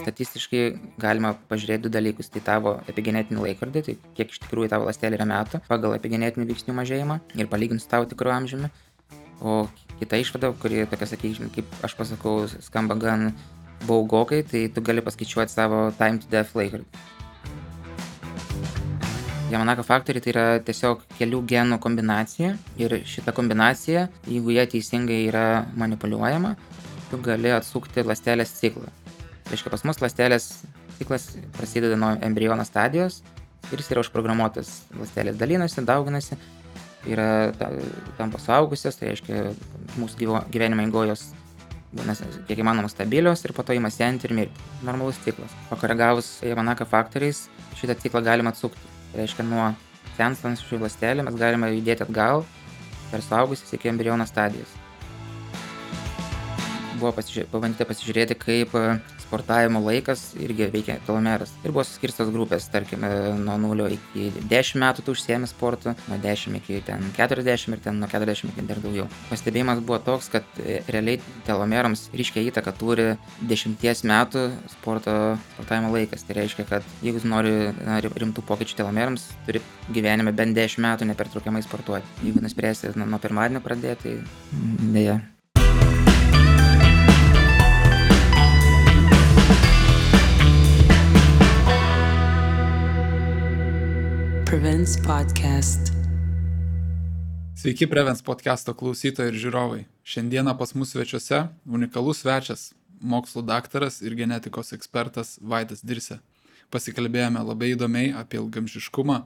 statistiškai galima pažiūrėti 2 dalykus. Tai tavo epigenetinį laikrodį, tai kiek iš tikrųjų tavo ląstelė yra metų pagal epigenetinių veiksnių mažėjimą ir palyginti su tavo tikru amžiumi. O kita išvada, kuri tokia, sakykime, kaip aš pasakau, skamba gan baugokai, tai tu gali paskaičiuoti savo time to death laikrodį. Yamanaka faktoriai tai yra tiesiog kelių genų kombinacija ir šita kombinacija, jeigu jie teisingai yra manipuliuojama, tu gali atsukti ląstelės ciklą. Tai reiškia, pas mus ląstelės ciklas prasideda nuo embriono stadijos ir jis yra užprogramuotas. Ląstelės dalinasi, dauginasi, yra tampa suaugusios, tai reiškia, mūsų gyvenimo eigojos būna kiek įmanoma stabilios ir po to ima senti ir mirti. Normalus ciklas. Pakoregavus Yamanaka faktoriais šitą ciklą galima atsukti. Tai reiškia, nuo senstančių ląstelę mes galime judėti atgal per suaugusias iki embriono stadijos. Buvo pabandyta pasižiūrėti, kaip sportavimo laikas irgi veikia telomeras. Ir buvo suskirstos grupės, tarkime, nuo 0 iki 10 metų tu užsiemi sportu, nuo 10 iki 40 ir nuo 40 iki dar daugiau. Pastebėjimas buvo toks, kad realiai telomerams ryškią įtaką turi 10 metų sportavimo laikas. Tai reiškia, kad jeigu nori rimtų pokyčių telomerams, turi gyvenime bent 10 metų nepertraukiamai sportuoti. Jeigu nuspręsi nuo pirmadienio pradėti, tai dėja. Prevents Podcast. Sveiki Prevents podcast'o klausytojai ir žiūrovai. Šiandieną pas mus svečiuose unikalus svečias, mokslų daktaras ir genetikos ekspertas Vaidas Dirsė. Pasikalbėjome labai įdomiai apie ilgaamžiškumą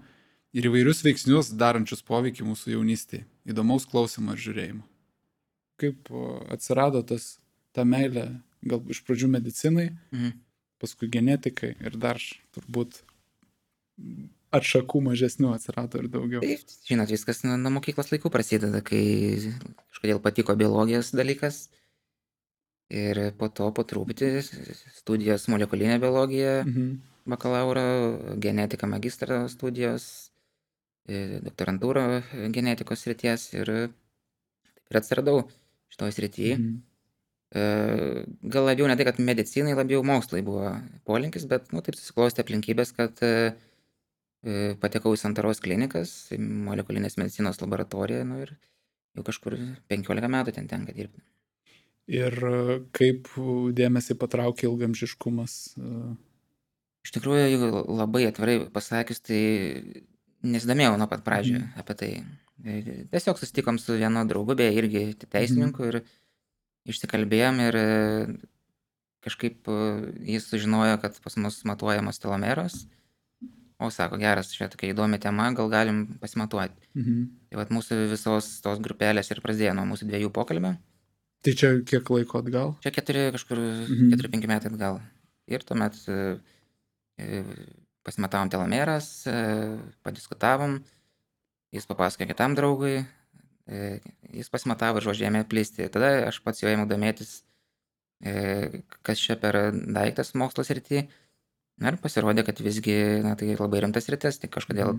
ir įvairius veiksnius darančius poveikį mūsų jaunystėje. Įdomaus klausimo ir žiūrėjimo. Kaip atsirado ta meilė, gal iš pradžių medicinai, paskui genetikai ir dar turbūt atšakų mažesnių atsirado ir daugiau. Taip, žinot, viskas nuo mokyklos laikų prasideda, kai kažkodėl patiko biologijos dalykas. Ir po to po truputį studijos molekulinė biologija, bakalauro, genetika magistro studijos, doktorantūra genetikos srities ir taip ir atsiradau šitoj srityje. Gal labiau ne tai, kad medicinai, labiau mokslai buvo polinkis, bet taip susiklostė aplinkybės, kad patekau į Santaros klinikas, molekulinės medicinos laboratoriją, ir jau kažkur 15 metų ten tenka dirbti. Ir kaip dėmesį patraukė ilgaamžiškumas? Iš tikrųjų, labai atvirai pasakius, tai nesidomėjau nuo pat pradžių apie tai. Tiesiog susitikom su vienu draugu, beje, irgi teisininku ir išsikalbėjom ir kažkaip jis sužinojo, kad pas mus matuojamos telomeros. O sako, geras, čia tokia įdomi tema, gal galim pasimatuoti. Tai vat mūsų visos tos grupelės ir prasidėjo nuo mūsų 2 pokalbio. Tai čia kiek laiko atgal? Čia 4-5 metai atgal. Ir tuomet pasimatavom telomeras, padiskutavom, jis papasakojo kitam draugui, jis pasimatavo ir žodžiu ėmė plisti. Tada aš pats jau ėmiau domėtis, kas čia per daiktas mokslo srity. Ir pasirodė, kad visgi tai labai rimtas sritis, tai kažkodėl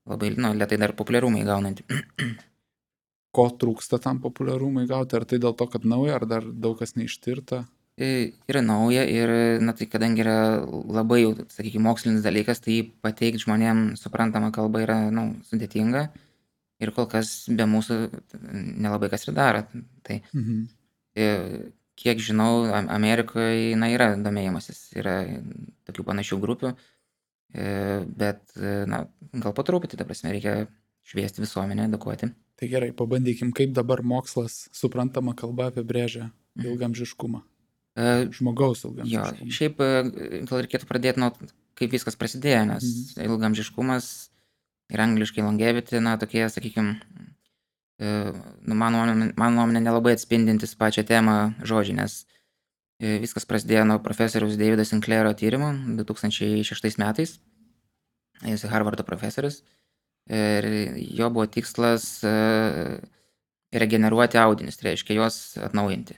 labai lėtai dar populiarumą įgaunanti. Ko trūksta tam populiarumą įgauti? Ar tai dėl to, kad nauja, ar dar daug kas neištirta? Yra nauja ir tai kadangi yra labai, sakykime, mokslinis dalykas, tai pateikti žmonėms suprantamą kalbą yra sudėtinga ir kol kas be mūsų nelabai kas ir daro. Tai kiek žinau, Amerikoje yra domėjimasis, yra tokių panašių grupių, bet gal po truputį, ta prasme, reikia šviesti visuomenę, edukuoti. Tai gerai, pabandykim, kaip dabar mokslas suprantama kalba apibrėžia ilgaamžiškumą. Žmogaus ilgaamžiškumą. Jo, šiaip gal reikėtų pradėti nuo kaip viskas prasidėjo, nes ilgaamžiškumas ir angliškai longevity, tokie, sakykime, mano nuomonė nelabai atspindintis pačią temą žodžiai, nes viskas prasidėjo nuo profesoriaus Davido Sinclairo tyrimo 2006 metais. Jis Harvardo profesorius ir jo buvo tikslas regeneruoti audinius, tai reiškia juos atnaujinti.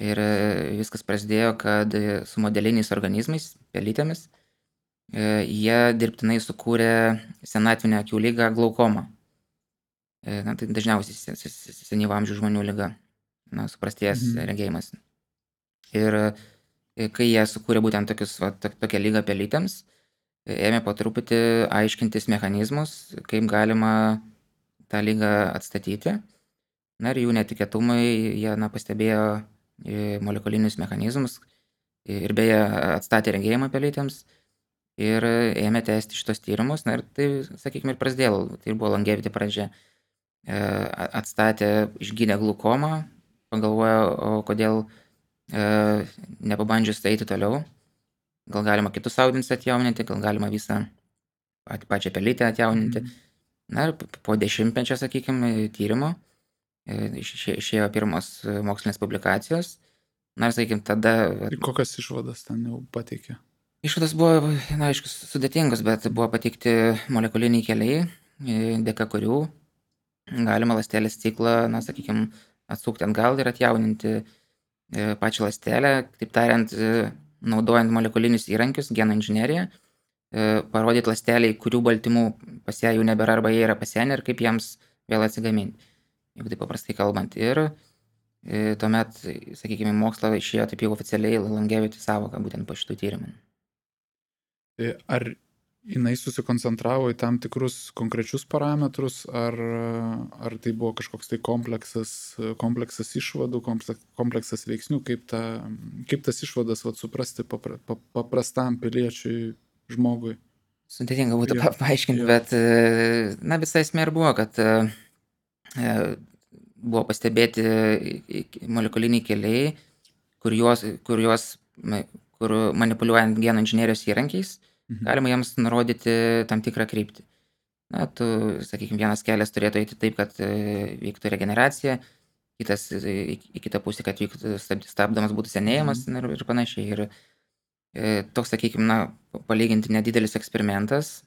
Ir viskas prasidėjo, kad su modeliniais organizmais, pelytėmis, jie dirbtinai sukūrė senatvinę akių ligą glaukomą. Tai dažniausiai senyvo amžiaus žmonių liga, suprastėjęs regėjimas. Ir kai jie sukūrė būtent tokią lygą pelytėms, ėmė po truputį aiškintis mechanizmus, kaip galima tą lygą atstatyti. Na ir jų netikėtumai, jie pastebėjo molekulinius mechanizmus ir beje atstatė regėjimą pelytėms ir ėmė tęsti šitos tyrimus. Na ir tai, sakykime, ir prasidėjo, tai buvo longevity pradžia. Atstatė, išgydė glukomą, pagalvojo, o kodėl nepabandžius eiti toliau. Gal galima kitus audinius atjauninti, gal galima visą pačią pelytę atjauninti. Na ir po 10-mečio, sakykime, tyrimo išėjo pirmos mokslinės publikacijos. Na ir, sakykime, tada... Ir kokias išvadas ten jau pateikė? Išvadas buvo, aišku, sudėtingos, bet buvo pateikti molekuliniai keliai, dėka kurių galima ląstelės ciklą, sakykime, atsukti atgal ir atjauninti pačią ląstelę, taip tariant, naudojant molekulinius įrankius, genų inžineriją, parodyti ląsteliai, kurių baltymų pas ją jau nebėra arba jie yra pasenę ir kaip jiems vėl atsigaminti, jeigu taip paprastai kalbant. Ir tuomet, sakykime, mokslo išėjo taip jau oficialiai longevity sąvoka būtent po šitų tyrimų. Ar jinai susikoncentravo į tam tikrus konkrečius parametrus, ar tai buvo kažkoks tai kompleksas išvadų, kompleksas veiksnių, kaip tas išvadas suprasti paprastam piliečiui, žmogui? Sudėtinga būtų paaiškinti, bet visa esmė ir buvo, kad buvo pastebėti molekuliniai keliai, kur manipuliuojant genų inžinerijos įrankiais, galima jiems nurodyti tam tikrą kryptį. Sakykime, vienas kelias turėtų eiti taip, kad vyktų regeneracija, kitas į kitą pusę, kad vyktų stabdomas būtų senėjimas ir panašiai. Ir toks, sakykime, palyginti nedidelis eksperimentas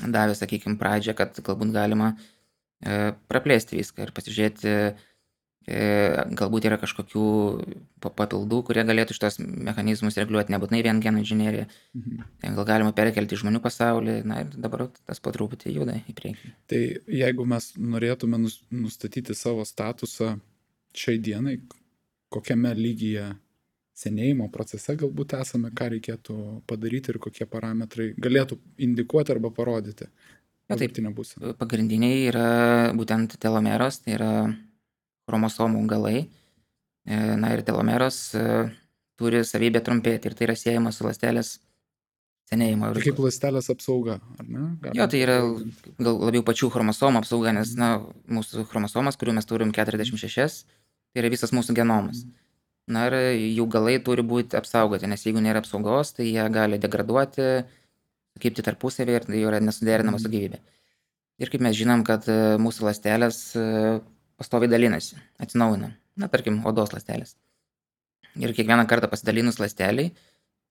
davė, sakykime, pradžią, kad galbūt galima praplėsti viską ir pasižiūrėti, galbūt yra kažkokių papildų, kurie galėtų šitos mechanizmus reguliuoti, nebūtinai vien genų inžinerija. Gal galima perkelti į žmonių pasaulį, ir dabar tas po truputį juda į priekį. Tai jeigu mes norėtume nustatyti savo statusą šiai dienai, kokiame lygyje senėjimo procese galbūt esame, ką reikėtų padaryti ir kokie parametrai galėtų indikuoti arba parodyti? Pagrindiniai yra būtent telomeros, tai yra chromosomų galai. Ir telomeros turi savybę trumpėti ir tai yra siejama su ląstelės senėjimo. Tai kaip ląstelės apsauga, ar ne? Tai yra gal labiau pačių chromosomų apsauga, nes mūsų chromosomas, kurių mes turim 46, tai yra visas mūsų genomas. Ir jų galai turi būti apsaugoti, nes jeigu nėra apsaugos, tai jie gali degraduoti, sukibti tarpusavį ir tai yra nesuderinama su gyvybė. Ir kaip mes žinom, kad mūsų ląstelės pastoviai dalinasi, atsinaujina. Tarkim, odos ląstelės. Ir kiekvieną kartą pasidalinus ląsteliai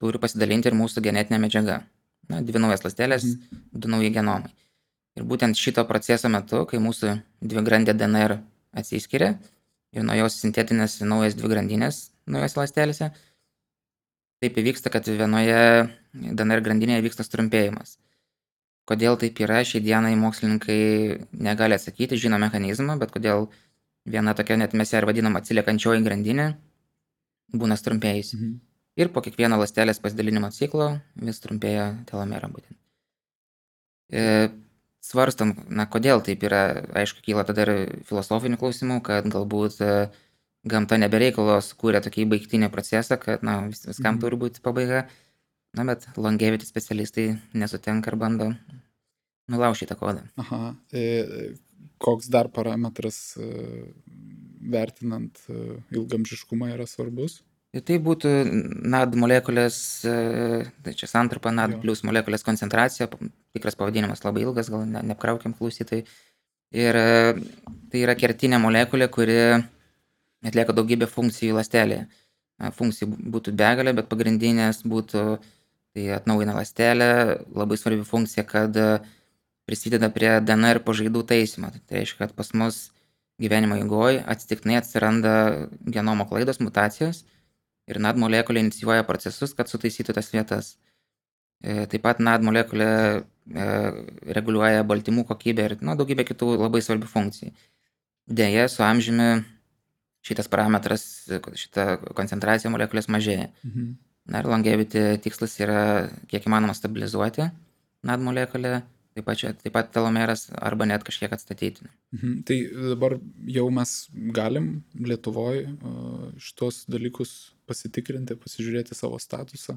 turi pasidalinti ir mūsų genetinė medžiaga. 2 naujas ląstelės, 2 nauji genomai. Ir būtent šito proceso metu, kai mūsų dvigrandė DNR atsiskiria ir nuo jos sintetinasi naujas dvigrandinės naujose ląstelėse, taip įvyksta, kad vienoje DNR grandinėje vyksta trumpėjimas. Kodėl taip yra, šiai dienai mokslininkai negali atsakyti, žino mechanizmą, bet kodėl viena tokia, net mes ją ir vadinam atsiliekančioji grandinė, būna trumpėjusi. Ir po kiekvieno ląstelės pasidalinimo ciklo vis trumpėja telomera būtent. Svarstam, kodėl taip yra, aišku, kyla tada ir filosofinių klausimų, kad galbūt gamta nebereikalo sukūrė tokį baigtinį procesą, kad viskam turi būti pabaiga. Bet longevity specialistai nesutinka ir bando nulaužti tą kodą. Koks dar parametras vertinant ilgamžiškumą yra svarbus? Tai būtų NAD molekulės, tai čia santrumpa NAD plus molekulės koncentracija, tikras pavadinimas labai ilgas, gal neapkraukiam klausytojai. Ir tai yra kertinė molekulė, kuri atlieka daugybę funkcijų ląstelėje. Funkcijų būtų begalė, bet pagrindinės būtų tai atnaujina ląstelę, labai svarbi funkcija, kad prisideda prie DNR pažaidų taisymo. Tai reiškia, kad pas mus gyvenimo eigoje atsitiktinai atsiranda genomo klaidos, mutacijos ir NAD molekulė inicijuoja procesus, kad sutaisytų tas vietas. Taip pat NAD molekulė reguliuoja baltymų kokybę ir daugybę kitų labai svarbių funkcijų. Deja, su amžiumi šitas parametras, šita koncentracija molekulės mažėja. Na ir longevity tikslas yra kiek įmanoma stabilizuoti NAD molekulę, taip pat telomeras arba net kažkiek atstatyti. Tai dabar jau mes galim Lietuvoje šitos dalykus pasitikrinti, pasižiūrėti savo statusą.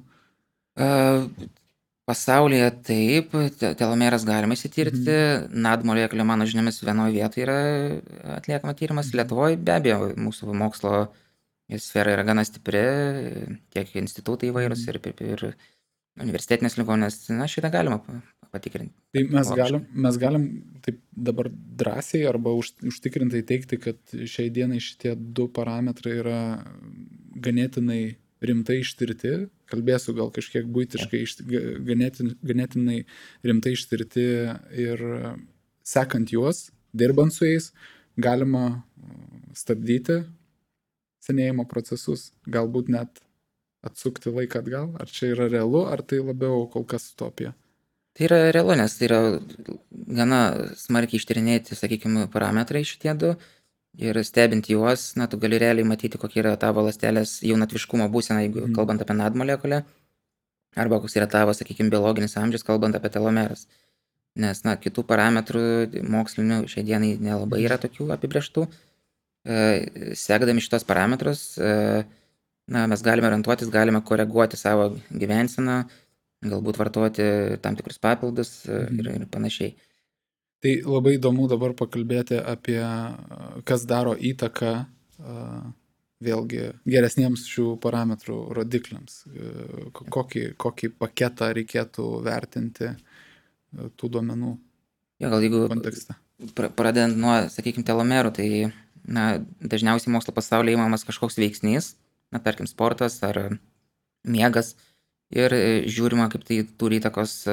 Pasaulyje taip, telomeras galima įsitirti, NAD molekulė, mano žiniomis, vienoje vietoje yra atliekama tyrimas. Lietuvoje be abejo mūsų mokslo sfera yra gana stipri, tiek institutai įvairūs ir universitetinės ligoninės, na, šitą galima patikrinti. Tai mes galim taip dabar drąsiai arba užtikrintai teigti, kad šiai dienai šitie du parametrai yra ganėtinai rimtai ištirti, kalbėsiu gal kažkiek buitiškai, ganėtinai rimtai ištirti ir sekant juos, dirbant su jais, galima stabdyti senėjimo procesus, galbūt net atsukti laiką atgal. Ar čia yra realu, ar tai labiau kol kas utopija? Tai yra realu, nes tai yra gana smarkiai ištyrinėti, sakykime, parametrai šitie du. Ir stebint juos, na, tu gali realiai matyti, kokia yra tavo ląstelės jaunatviškumo būsena, jeigu kalbant apie NAD molekulę, arba koks yra tavo, sakykime, biologinis amžius, kalbant apie telomeras. Nes, na, kitų parametrų mokslinių šiai dienai nelabai yra tokių apibrėžtų. Sekdami šitos parametrus, na, mes galime orientuotis, galime koreguoti savo gyvenseną, galbūt vartoti tam tikrus papildus ir panašiai. Tai labai įdomu dabar pakalbėti apie, kas daro įtaką vėlgi geresniems šių parametrų rodikliams. Kokį paketą reikėtų vertinti tų duomenų kontekste. Pradedant nuo, sakykime, telomerų, tai na, dažniausiai mokslo pasaulyje įmamas kažkoks veiksnys, na, tarkim, sportas ar miegas, ir žiūrima, kaip tai turi įtakos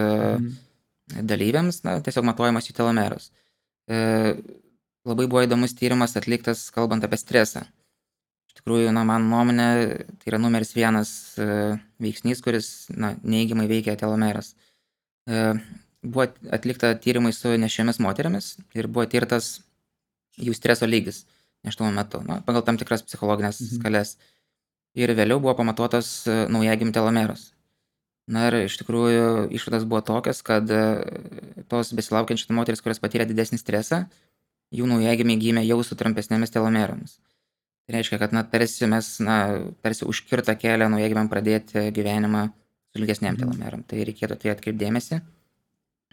dalyviams, na, tiesiog matuojamas jų telomeras. Labai buvo įdomus tyrimas atliktas, kalbant apie stresą. Iš tikrųjų, na, man nuomonė, tai yra numeris 1 veiksnys, kuris, na, neigiamai veikia telomeras. Buvo atlikta tyrimai su nešiomis moterimis ir buvo tirtas jų streso lygis nėštumo metu, na, pagal tam tikras psichologinės skales. Ir vėliau buvo pamatuotas naujagimių telomeras. Na ir iš tikrųjų išvados buvo tokios, kad tos besilaukiančios moteris, kurios patyrė didesnį stresą, jų naujagimiai gimė jau su trumpesnėmis telomeromis. Tai reiškia, kad, na, tarsi užkirta kelią naujagimiam pradėti gyvenimą su ilgesnėm telomerom. Tai reikėtų tai atkreipti dėmesį,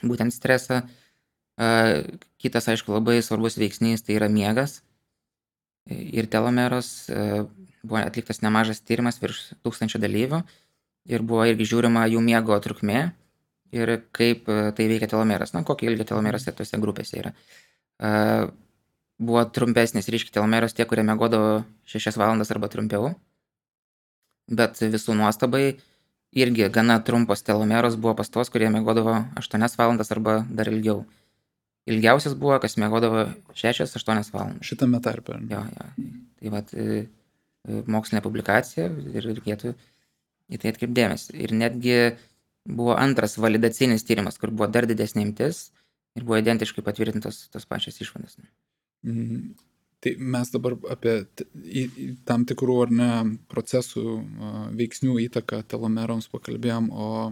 būtent stresą. Kitas, aišku, labai svarbus veiksnys tai yra miegas ir telomeros. Buvo atliktas nemažas tyrimas virš 1000 dalyvių. Ir buvo irgi žiūrima jų miego trukmė ir kaip tai veikia telomeras. Na, kokio ilgio telomeras tose grupėse yra. Buvo trumpesnis ryškiai telomeros tie, kurie miegodavo 6 valandas arba trumpiau. Bet visų nuostabai irgi gana trumpos telomeros buvo pas tos, kurie miegodavo 8 valandas arba dar ilgiau. Ilgiausias buvo, kas miegodavo 6-8 valandas. Šitame tarpe. Jo. Tai vat mokslinė publikacija ir reikėtų į tai atkreipdėmės. Ir netgi buvo antras validacinis tyrimas, kur buvo dar didesnė imtis ir buvo identiškai patvirtintos tos pačios išvados. Tai mes dabar apie tam tikrų ar ne procesų veiksnių įtaką telomeroms pakalbėjom, o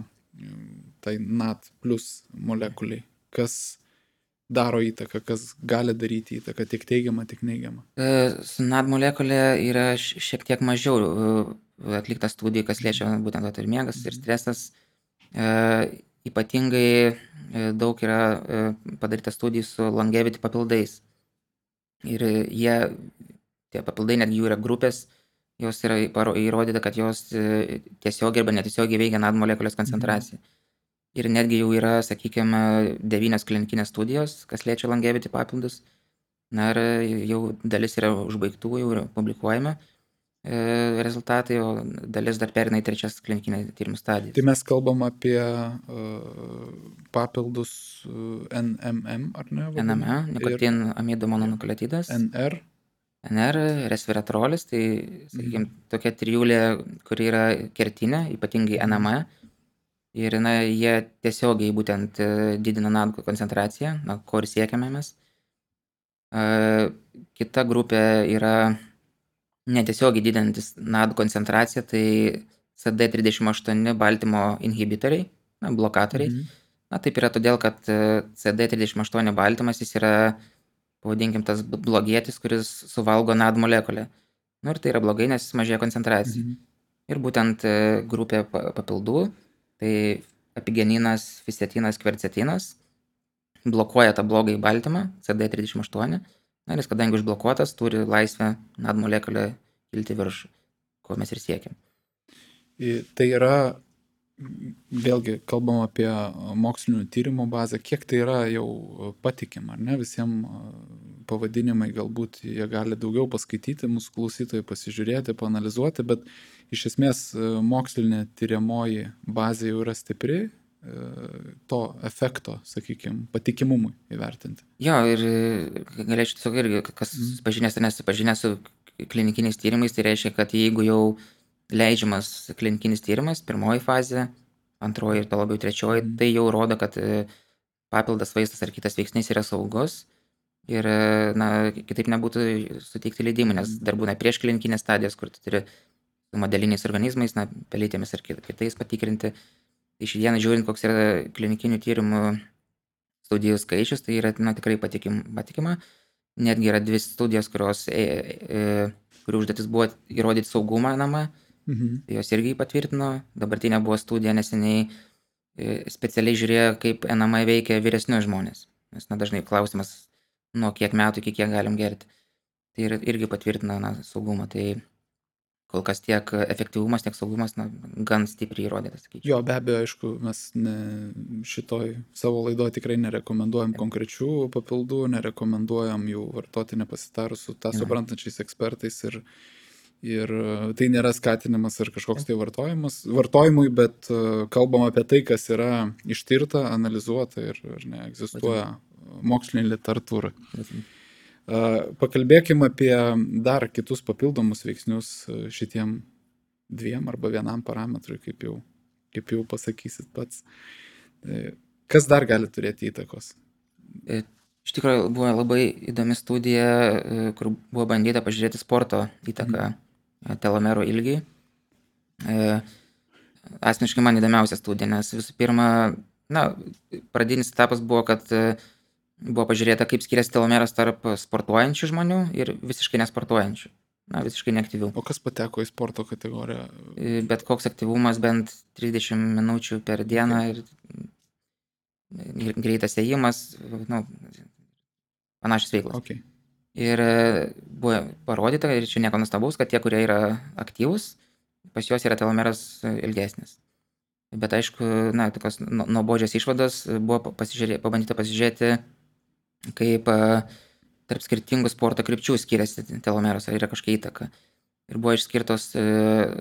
tai NAD plus molekuliai. Kas daro įtaką, kas gali daryti įtaką, tiek teigiamą, tiek neigiamą? Su NAD molekulė yra šiek tiek mažiau atlikta studija, kas liečia būtent ir miegas, ir stresas. Ypatingai daug yra padaryta studijų su longevity papildais. Ir tie papildai, netgi jų yra grupės, jos yra įrodyta, kad jos tiesiogiai arba netiesiogiai veikia NAD molekulės koncentraciją. Ir netgi jau yra, sakykime, 9 klinikinės studijos, kas liečia longevity papildus. Na ir jau dalis yra užbaigtų, jau yra publikuojama rezultatai, o dalis dar perina į 3 klinikinę tyrimų stadiją. Tai mes kalbam apie papildus NMM, ar ne? NME, nikotin amido mononukleotidas. NR, resveratrolis, tai, sakykime, tokia trijulė, kuri yra kertinė, ypatingai NME. Ir, na, jie tiesiogiai būtent didina NAD koncentraciją, na, ko ir siekiame mes. Kita grupė yra netiesiogiai didinantis NAD koncentraciją, tai CD38 baltymo inhibitoriai, blokatoriai. Taip yra todėl, kad CD38 baltymas jis yra, pavadinkim, tas blogietis, kuris suvalgo NAD molekulę. Ir tai yra blogai, nes mažėja koncentracija. Ir būtent grupė papildų, tai epigeninas, fisetinas, kvercetinas, blokuoja tą blogąjį baltymą, CD38. Ir jis, kadangi užblokuotas, turi laisvę NAD molekulę kilti viršų, ko mes ir siekiam. Tai yra, vėlgi, kalbam apie mokslinių tyrimų bazę, kiek tai yra jau patikima, ar ne? Visiems pavadinimai galbūt jie gali daugiau paskaityti, mūsų klausytojai pasižiūrėti, paanalizuoti, bet iš esmės mokslinė tyriamoji bazė jau yra stipri, to efekto, sakykime, patikimumui įvertinti. Jo, ir galėčiau tiesiog irgi, kas pažinęs ar nesipažinęs su klinikiniais tyrimais, tai reiškia, kad jeigu jau leidžiamas klinikinis tyrimas, pirmoji fazė, antroji ir to labiau trečioji, tai jau rodo, kad papildas vaistas ar kitas veiksnys yra saugus ir kitaip nebūtų suteikti leidimų, nes dar būna prieš klinikinės stadijos, kur tu turi su modeliniais organizmais, pelytėmis ar kitais patikrinti. Iš dieną žiūrint, koks yra klinikinių tyrimų studijų skaičius, tai yra tikrai patikima. Netgi yra 2 studijos, kurių užduotis buvo įrodyti saugumą namą. Jos irgi patvirtino. Dabartinė buvo studija neseniai, specialiai žiūrėjo, kaip NMA veikia vyresnius žmonės. Nes dažnai klausimas, nuo kiek metų iki kiek galim gerti. Tai irgi patvirtino saugumą. Tai kol kas tiek efektyvumas, tiek saugumas gan stipriai įrodytas. Jo, be abejo, aišku, mes šitoj savo laidoje tikrai nerekomenduojam konkrečių papildų, nerekomenduojam jų vartoti nepasitarus su tą suprantančiais ekspertais ir tai nėra skatinimas ar kažkoks tai vartojimui, bet kalbam apie tai, kas yra ištirta, analizuota ir egzistuoja mokslinė literatūra. Pakalbėkim apie dar kitus papildomus veiksnius šitiem 2 arba 1 parametrui, kaip jau pasakysit pats. Kas dar gali turėti įtakos? Iš tikrųjų buvo labai įdomi studija, kur buvo bandyta pažiūrėti sporto įtaką telomerų ilgiui. Asmeniškai man įdomiausia studija, nes visų pirma, pradinis etapas buvo, kad buvo pažiūrėta, kaip skiriasi telomeras tarp sportuojančių žmonių ir visiškai nesportuojančių, visiškai neaktyvių. O kas pateko į sporto kategoriją? Bet koks aktyvumas bent 30 minučių per dieną ir greitas ėjimas, panašios veiklos. Okay. Ir buvo parodyta, ir čia nieko nuostabaus, kad tie, kurie yra aktyvūs, pas juos yra telomeras ilgesnis. Bet aišku, tokios nuobodžios išvados buvo pabandyta pasižiūrėti, kaip tarp skirtingų sporto krypčių skiriasi telomeras, ar yra kažkokia įtaka. Ir buvo išskirtos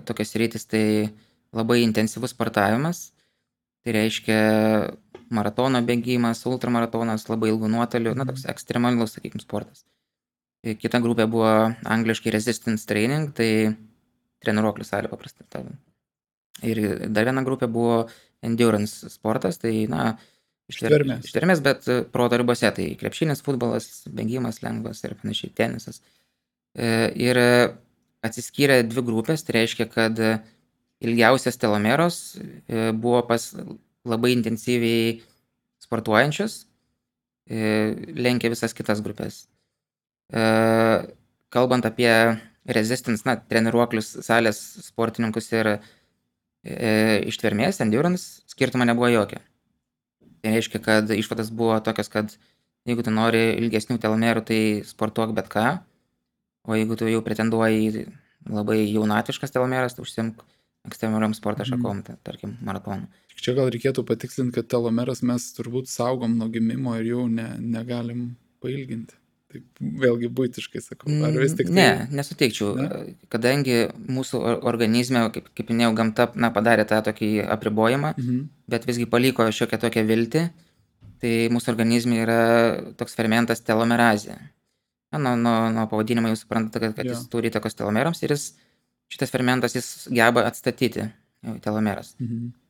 tokios sritys, tai labai intensyvus sportavimas, tai reiškia maratono bėgimas, ultramaratonas, labai ilgų nuotolių, toks ekstremalus, sakykime, sportas. Kita grupė buvo angliškai resistance training, tai treniruoklių salė paprastai. Ir dar viena grupė buvo endurance sportas, tai ištvermės, bet proto ribose, tai krepšinis, futbolas, bėgimas lengvas ir panašiai, tenisas. Ir atsiskyrė 2 grupės, tai reiškia, kad ilgiausias telomeros buvo pas labai intensyviai sportuojančius, lenkia visas kitas grupės. Kalbant apie resistance, treniruoklius salės sportininkus ir ištvermės, endurance, skirtumo nebuvo jokio. Tai reiškia, kad išvadas buvo tokios, kad jeigu tu nori ilgesnių telomerų, tai sportuok bet ką, o jeigu tu jau pretenduoji labai jaunatviškas telomeras, tai užsimk ekstremaliom sporto šakom, tarkim, maratonu. Čia gal reikėtų patikslinti, kad telomeras mes turbūt saugom nuo gimimo ir jau negalim pailginti. Taip, vėlgi buitiškai sakau. Ar vis tik tai... Ne, nesuteikčiau. Ne? Kadangi mūsų organizme, kaip minėjau, gamta padarė tą tokį apribojimą, bet visgi paliko šiokią tokią viltį, tai mūsų organizme yra toks fermentas telomerazė. Nuo pavadinimo jūs suprantate, kad jis turi įtakos telomerams ir šitas fermentas jis geba atstatyti telomeras.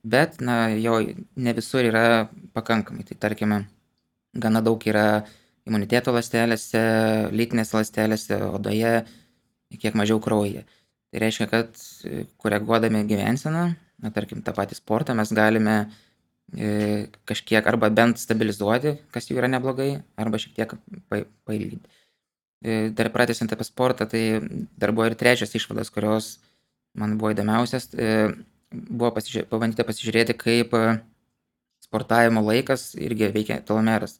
Bet jo ne visur yra pakankamai. Tai tarkime, gana daug yra imuniteto ląstelėse, lytinės ląstelėse, odoje, kiek mažiau kraujyje. Tai reiškia, kad koreguodami gyvenseną, tarkim, tą patį sportą, mes galime kažkiek arba bent stabilizuoti, kas jau yra neblogai, arba šiek tiek pailginti. Dar pratęsiant apie sportą, tai dar buvo ir trečias išvadas, kurios man buvo įdomiausias. Buvo pabandyta pasižiūrėti, kaip sportavimo laikas irgi veikia telomeras.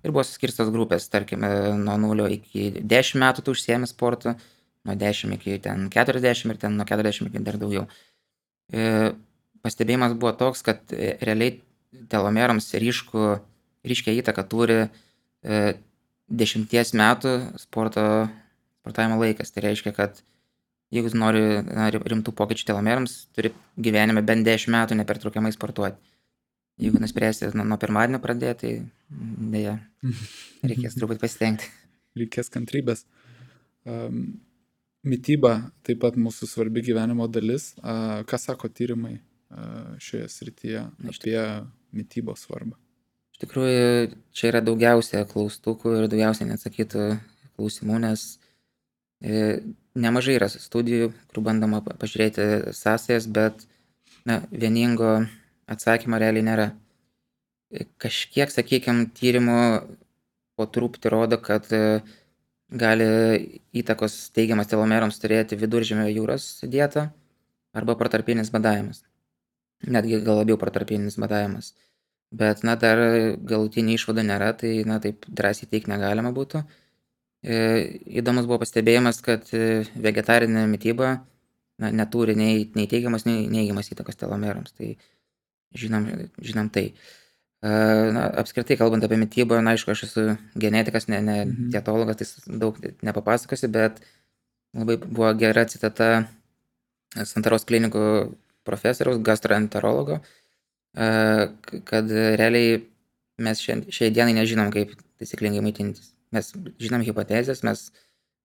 Ir buvo suskirstos grupės, tarkim, nuo 0 iki 10 metų tu užsiemi sportu, nuo 10 iki 40 ir nuo 40 iki dar daugiau. Pastebėjimas buvo toks, kad realiai telomerams ryškia įtaką turi 10 metų sportavimo laikas. Tai reiškia, kad jeigu nori rimtų pokyčių telomerams, turi gyvenime bent 10 metų nepertraukiamai sportuoti. Jeigu nuspręsi nuo pirmadienio pradėti, tai dėja, reikės truputį pasitengti. Reikės kantrybės. Mityba taip pat mūsų svarbi gyvenimo dalis. Ką sako tyrimai šioje srityje apie mitybos svarbą? Iš tikrųjų, čia yra daugiausia klaustukų ir daugiausia neatsakytų klausimų, nes nemažai yra studijų, kur bandoma pažiūrėti sąsajas, bet vieningo atsakymo realiai nėra. Kažkiek, sakykime, tyrimų po truputį rodo, kad gali įtakos teigiamas telomerams turėti Viduržemio jūros dieta arba protarpinis badavimas. Netgi gal labiau protarpinis badavimas. Bet, dar galutinį išvadą nėra, tai, taip drąsiai teikti negalima būtų. Įdomus buvo pastebėjimas, kad vegetarinė mityba neturi nei teigiamas, nei neigiamas įtakos telomerams. Tai žinom tai. Apskritai, kalbant apie mitybą, aišku, aš esu genetikas, ne dietologas, tai daug nepapasakosiu, bet labai buvo gera citata Santaros klinikų profesoriaus, gastroenterologo, kad realiai mes šiai dienai nežinom, kaip taisyklingai maitintis. Mes žinom hipotezės, mes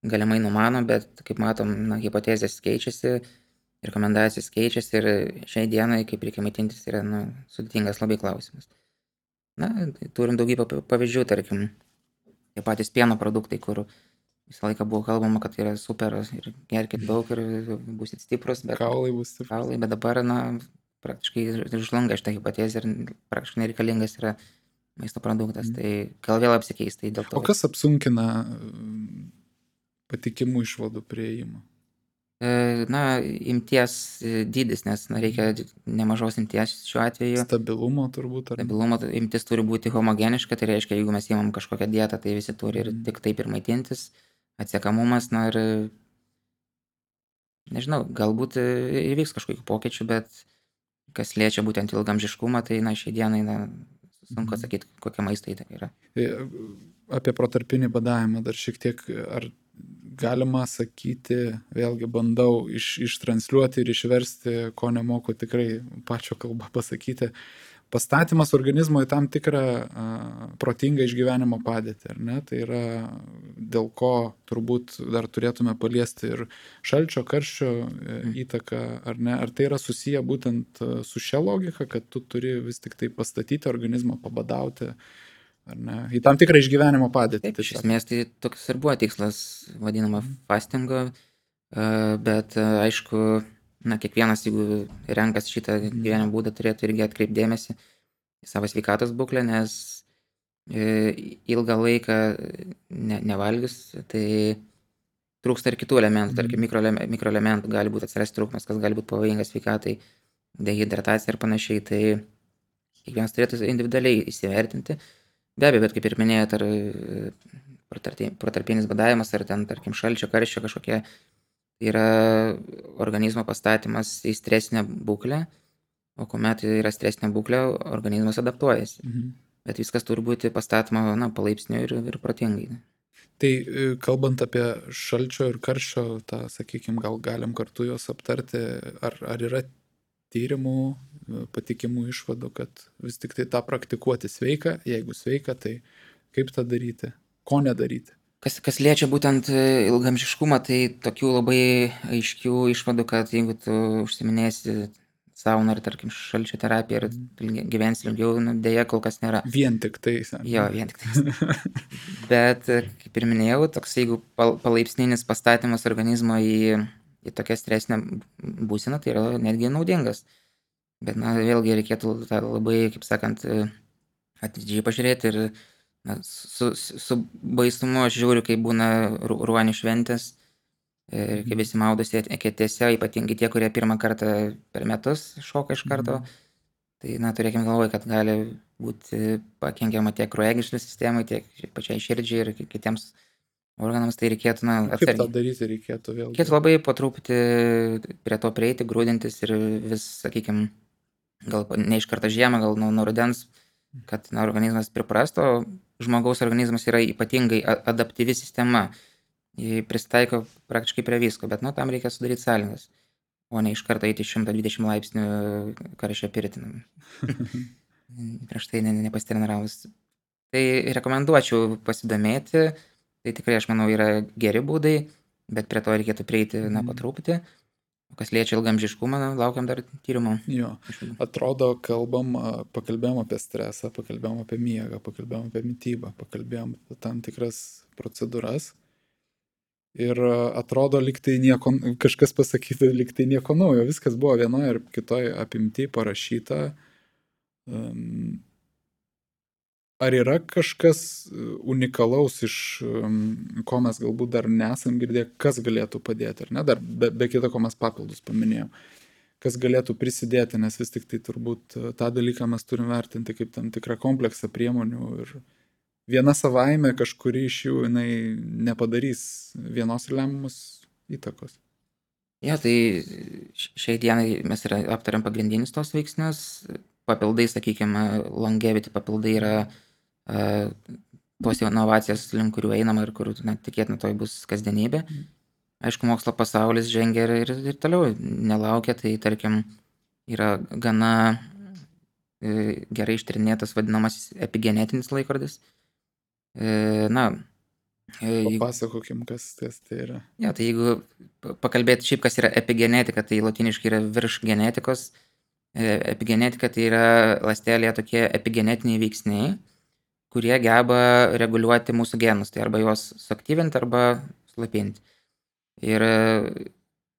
galimai numanom, bet kaip matom, hipotezės keičiasi, rekomendacijos keičiasi ir šiai dienai, kaip reikia maitintis, yra sudėtingas labai klausimas. Turim daugybę pavyzdžių, tarkim, tie patys pieno produktai, kur visą laiką buvo kalbama, kad yra super ir gerkit daug ir būsit stiprus, bet Kaulai bus stiprus. kaulai, bet dabar, praktiškai žlunga šitą hipotezę ir praktiškai nereikalingas yra maisto produktas. Tai gal vėl apsikeis, tai dėl to. O kas apsunkina patikimų išvadų priėjimą? Imties dydis, nes reikia nemažos imties šiuo atveju. Stabilumo turbūt. Stabilumo imtis turi būti homogeniška, tai reiškia, jeigu mes įmam kažkokią dietą, tai visi turi ir tik taip ir maitintis. Atsiekamumas, ir nežinau, galbūt įvyks kažkokių pokyčių, bet kas liečia būtent ilgamžiškumą, tai šiai dienai sunku atsakyti, kokia maisto įtaka yra. Apie protarpinį badavimą dar šiek tiek, ar galima sakyti, vėlgi bandau ištransliuoti ir išversti, ko nemoku tikrai pačio kalbą pasakyti, pastatymas organizmo į tam tikrą protingą išgyvenimo padėtį, ar ne? Tai yra dėl ko turbūt dar turėtume paliesti ir šalčio, karščio įtaką, ar ne? Ar tai yra susiję būtent su šia logika, kad tu turi vis tik tai pastatyti organizmą, pabadauti, ar ne? Į tam tikrą išgyvenimo padėtį. Taip, iš esmės tai toks ir buvo tikslas, vadinama fastingo, bet aišku, kiekvienas, jeigu renkasi šitą gyvenimo būdą, turėtų irgi atkreipti dėmesį į savo sveikatos būklę, nes ilgą laiką nevalgius, tai trūksta ir kitų elementų, tarkim mikroelementų gali būti atsirasti trūkumas, kas gali būti pavojingas sveikatai, dehidratacija ir panašiai, tai kiekvienas turėtų individualiai įsivertinti. Be abejo, bet kaip ir minėjot, ar protarpinis badavimas, ar tarkim šalčio, karščio kažkokie, yra organizmo pastatymas į stresinę būklę, o kuomet yra stresinė būklė, organizmas adaptuojasi. Bet viskas turi būti pastatoma palaipsniui ir protingai. Tai kalbant apie šalčio ir karščio, tą, sakykime, gal galim kartu juos aptarti, ar yra tyrimų, patikimų išvadų, kad vis tik tai tą praktikuoti sveika, jeigu sveika, tai kaip tą daryti, ko nedaryti? Kas liečia būtent ilgamžiškumą, tai tokių labai aiškių išvadų, kad jeigu tu užsiminėsi sauna ir, tarkim, šalčio terapija ir gyvensi ilgiau, dėja kol kas nėra. Vien tik tai. Jo, vien tik tai. Bet, kaip ir minėjau, toks jeigu palaipsninis pastatymas organizmo į tokią stresinę būseną, tai yra netgi naudingas. Bet, vėlgi reikėtų tą labai, kaip sakant, atidžiai pažiūrėti ir su baisumu aš žiūriu, kai būna ruonių šventės, kai visi maudosi eketėse, ypatingai tie, kurie pirmą kartą per metus šoka iš karto. Tai, turėkime galvoje, kad gali būti pakenkiama tiek kraujagyslių sistemai, tiek pačiai širdžiai ir kitiems organams, tai reikėtų, Kaip tą daryti reikėtų vėl? Reikėtų labai po truputį prie to prieiti, grūdintis ir vis, sakykime, gal ne iš karto žiemą, gal nuo rudens, kad organizmas priprastų, o žmogaus organizmas yra ypatingai adaptyvi sistema. Jį pristaiko praktiškai prie visko, bet tam reikia sudaryti sąlygas, o ne iš karto eiti 120 laipsnių karščio pirtį. Prieš tai nepasitreniravus. Tai rekomenduočiau pasidomėti, tai tikrai, aš manau, yra geri būdai, bet prie to reikėtų prieiti po truputį. Kas liečia ilgamžiškumą, laukiam dar tyrimų. Jo, atrodo, pakalbėjom apie stresą, pakalbėjom apie miegą, pakalbėjom apie mitybą, pakalbėjom apie tam tikras procedūras. Ir atrodo, lyg tai nieko, kažkas pasakyta, lyg tai nieko naujo, viskas buvo vienoje ir kitoje apimti parašyta. Ar yra kažkas unikalaus, iš ko mes galbūt dar nesam girdėję, kas galėtų padėti, ar ne? Dar be kito, ko mes papildus paminėjom. Kas galėtų prisidėti, nes vis tik tai turbūt tą dalyką mes turim vertinti kaip tam tikrą kompleksą priemonių ir viena savaime kažkuri iš jų jinai nepadarys vienos lemiamos įtakos. Jo, tai šiai dienai mes aptariam pagrindinius tos veiksnius. Papildai, sakykime, longevity papildai yra tos inovacijas, link kurių einama ir kur tikėtina toj bus kasdienybė. Aišku, mokslo pasaulis žengia ir toliau nelaukia, tai tarkim yra gana gerai ištyrinėtas vadinamasis epigenetinis laikrodis. Papasakokim, kas tai yra. Ja, tai jeigu pakalbėti šiaip, kas yra epigenetika, tai latiniškai yra virš genetikos. Epigenetika tai yra ląstelėje tokie epigenetiniai veiksniai, kurie geba reguliuoti mūsų genus, tai arba juos suaktyvinti, arba slopinti. Ir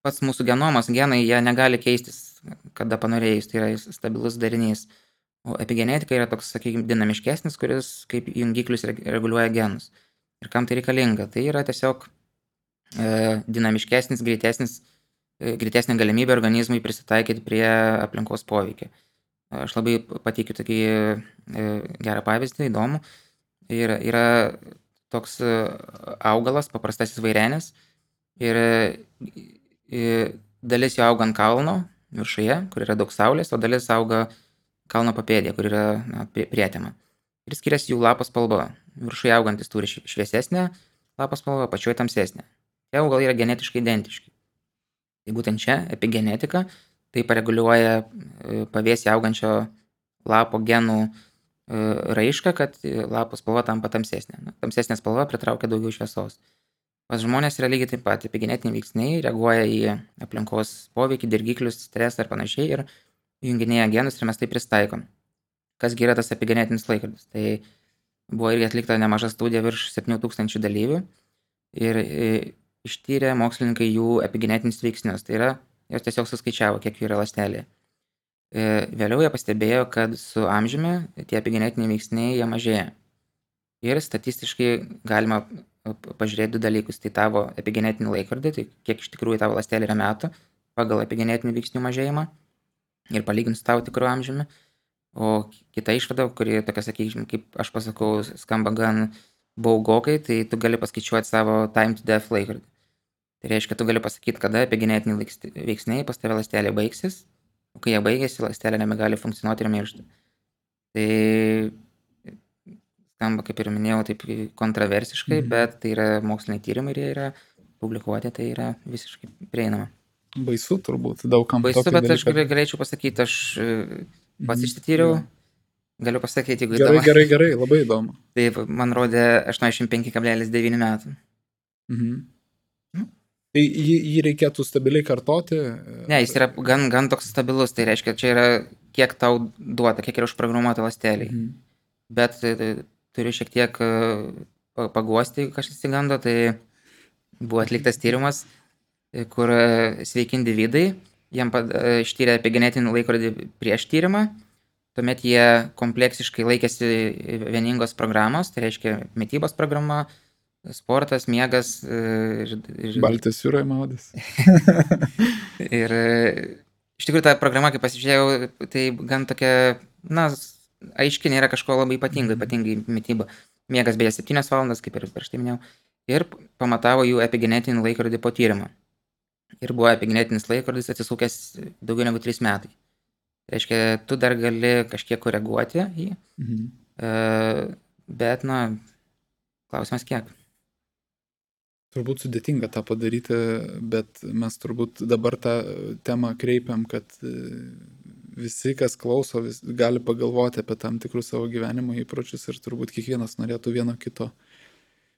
pats mūsų genomas, genai, jie negali keistis, kada panorėjus, tai yra stabilus darinys. O epigenetika yra toks, sakykime, dinamiškesnis, kuris kaip jungiklius reguliuoja genus. Ir kam tai reikalinga? Tai yra tiesiog dinamiškesnis, greitesnė galimybė organizmui prisitaikyti prie aplinkos poveikio. Aš labai pateikiu tokį gerą pavyzdį, įdomų. Yra toks augalas, paprastasis vairenis, ir dalis jo auga ant kalno viršuje, kur yra daug saulės, o dalis auga kalno papėdėje, kur yra prietema. Ir skiriasi jų lapo spalva. Viršuje augantis turi šviesesnę lapo spalvą, apačioje tamsesnę. Tie augalai yra genetiškai identiški. Tai būtent čia epigenetika tai pareguliuoja pavėsyje augančio lapo genų raišką, kad lapo spalva tampa tamsesnė. Tamsesnė spalva pritraukia daugiau šviesos. Pas žmonės yra lygiai taip pat, epigenetiniai veiksniai reaguoja į aplinkos poveikį, dirgiklius, stresą ir panašiai ir junginėja genus ir mes tai pristaikom. Kasgi yra tas epigenetinis laikrodis? Tai buvo irgi atlikta nemaža studija virš 7000 dalyvių ir ištyrė mokslininkai jų epigenetinius veiksnius. Tai yra, jos tiesiog suskaičiavo, kiek jų yra ląstelėje. Vėliau jie pastebėjo, kad su amžiumi tie epigenetiniai veiksniai jie mažėja. Ir statistiškai galima pažiūrėti du dalykus. Tai tavo epigenetinį laikrodį, tai kiek iš tikrųjų tavo ląstelė yra metų pagal epigenetinių veiksnių mažėjimą ir palyginti su tavo tikru amžiumi. O kita išvada, kuri tokia, sakykime, kaip aš pasakau, skamba gan baugokai, tai tu gali paskaičiuoti savo time to death laikrodį. Tai reiškia, tu gali pasakyti, kada epigenetiniai veiksniai pas tave ląstelė baigsis, o kai jie baigėsi, ląstelė nebegali funkcionuoti ir miršti. Tai skamba, kaip ir minėjau, taip kontroversiškai, bet tai yra moksliniai tyrimai ir jie yra publikuoti, tai yra visiškai prieinama. Baisu turbūt, daugam. Baisu, bet aš galėčiau pasakyti, aš pats išsityriau, galiu pasakyti, jeigu įdomu. Gerai, labai įdomu. Taip, man rodė 85,9 metų. Tai jį reikėtų stabiliai kartoti? Ne, jis yra gan toks stabilus, tai reiškia, čia yra kiek tau duota, kiek yra užprogramuota ląsteliai. Bet turiu šiek tiek paguosti, jeigu kažkas įsigando, tai buvo atliktas tyrimas, kur sveiki individai, jiem ištyrė epigenetinį laikrodį prieš tyrimą, tuomet jie kompleksiškai laikėsi vieningos programos, tai reiškia mitybos programa, sportas, miegas. Baltijos jūroje maudės. Ir iš tikrųjų ta programa, kai pasižiūrėjau, tai gan tokia, aiškiai nėra kažko labai ypatingai mityba. Miegas beje 7 valandas, kaip ir prieš tai minėjau. Ir pamatavo jų epigenetinį laikrodį po tyrimo. Ir buvo epigenetinis laikrodis atsisukęs daugiau negu 3 metai. Reiškia, tu dar gali kažkiek koreguoti jį, bet, klausimas kiek. Turbūt sudėtinga tą padaryti, bet mes turbūt dabar tą temą kreipiam, kad visi, kas klauso, gali pagalvoti apie tam tikrus savo gyvenimo įpročius ir turbūt kiekvienas norėtų vieno kito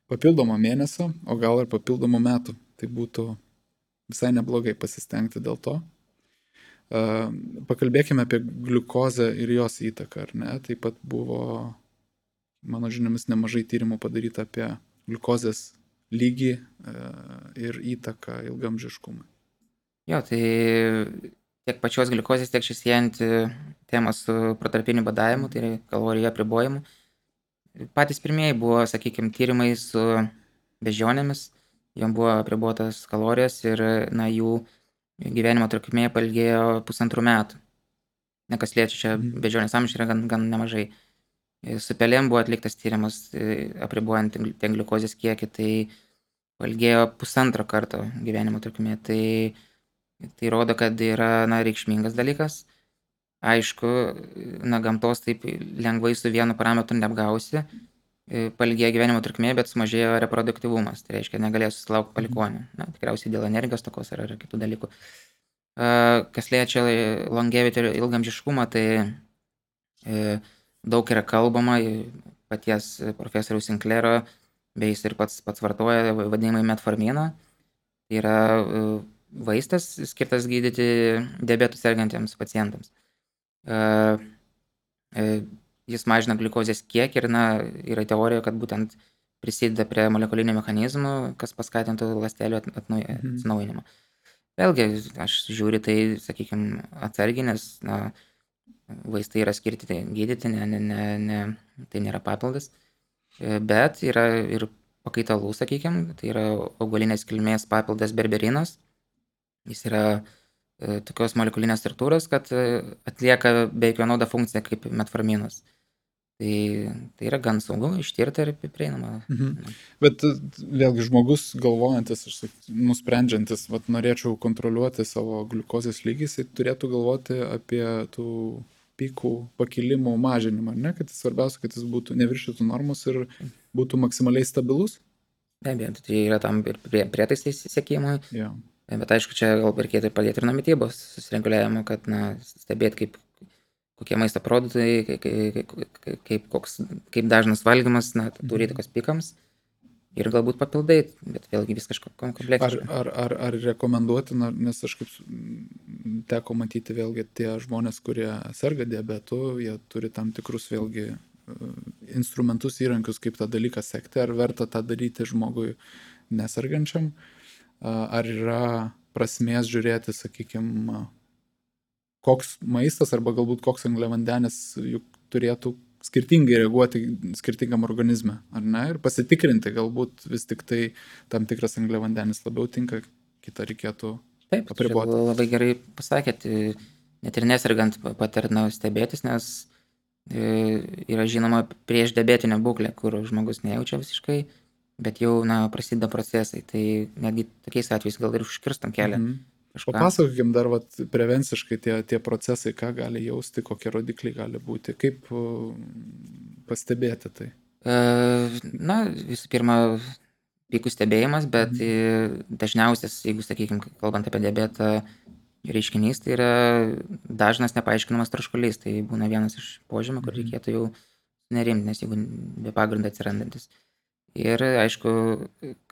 papildomo mėnesio, o gal ir papildomų metų. Tai būtų visai neblogai pasistengti dėl to. Pakalbėkime apie gliukozę ir jos įtaką, ar ne? Taip pat buvo, mano žiniomis, nemažai tyrimų padaryta apie gliukozės lygį ir įtaką ilgamžiškumui. Jo, tai tiek pačios gliukozės, tiek šis siejanti tema su protarpiniu badavimu, tai yra kalorijų apribojimu. Patys pirmieji buvo, sakykime, tyrimai su beždžionėmis, jom buvo apribotas kalorijas ir jų gyvenimo trukmė pailgėjo 1,5 metų. Nekas liečia, čia beždžionės amžius yra gan nemažai. Su pelėm buvo atliktas tyrimas apribojant ten gliukozės kiekį, tai pailgėjo 1,5 karto gyvenimo trukmė. Tai rodo, kad yra reikšmingas dalykas. Aišku, gamtos taip lengvai su vienu parametru neapgausi. Pailgėjo gyvenimo trukmė, bet sumažėjo reproduktyvumas. Tai reiškia, negalėjo susilaukti palikuonių. Tikriausiai dėl energijos tokos ar kitų dalykų. Kas liečia longevity ir ilgamžiškumą, tai daug yra kalbama, paties profesoriaus Sinclairo, bei jis ir pats vartoja vadinamai metforminą. Tai yra vaistas skirtas gydyti diabetų sergantiems pacientams. Jis mažina gliukozės kiekį ir yra teorija, kad būtent prisideda prie molekulinių mechanizmų, kas paskatintų ląstelių atsinaujinimą. Vėlgi, aš žiūriu tai, sakykime, atsargiai, nes vaistai yra skirti gydyti, tai nėra papildas. Bet yra ir pakaitalų, sakykime, tai yra augalinės kilmės papildas berberinas. Jis yra tokios molekulinės struktūros, kad atlieka beveik vienodą funkciją kaip metforminas. Tai yra gan saugu, ištirta ir prieinama. Bet vėlgi žmogus galvojantis, nusprendžiantis, norėčiau kontroliuoti savo gliukozės lygį, jis turėtų galvoti apie tų pikų pakilimų mažinimą, ne? Kad svarbiausia, kad jis būtų neviršytų normos ir būtų maksimaliai stabilus? Be abejo, tai yra tam ir prietaisai sekimui. Jo. Bet aišku, čia gal reikėtų padėti ir nuo mitybos susireguliavimo, kad stebėti, kokie maisto produktai, kaip dažnas valgymas turi įtakos pikams ir galbūt papildai, bet vėlgi vis kažko kompleksiškai. Ar rekomenduotina, nes aš kaip teko matyti vėlgi tie žmonės, kurie serga diabetu, jie turi tam tikrus vėlgi instrumentus, įrankius, kaip tą dalyką sekti, ar verta tą daryti žmogui nesergančiam, ar yra prasmės žiūrėti, sakykime, koks maistas arba galbūt koks angliavandenis juk turėtų skirtingai reaguoti skirtingam organizme, ar ne? Ir pasitikrinti, galbūt vis tik tai tam tikras angliavandenis labiau tinka, kitą reikėtų apriboti. Taip, labai gerai pasakėt, net ir nesergant patarna stebėtis, nes yra žinoma prieš diabetinę būklę, kur žmogus nejaučia visiškai, bet jau prasideda procesai, tai netgi tokiais atvejais gal ir užkirstam kelią. Papasakokim dar prevenciškai tie procesai, ką gali jausti, kokie rodikliai gali būti, kaip pastebėti tai? Visų pirma, pikų stebėjimas, bet dažniausias, jeigu, sakykime, kalbant apie diabetą, reiškinys, tai yra dažnas nepaaiškinamas troškulys, tai būna vienas iš požymių, kur reikėtų jau nerimti, nes jeigu be pagrindo atsirandantis. Ir, aišku,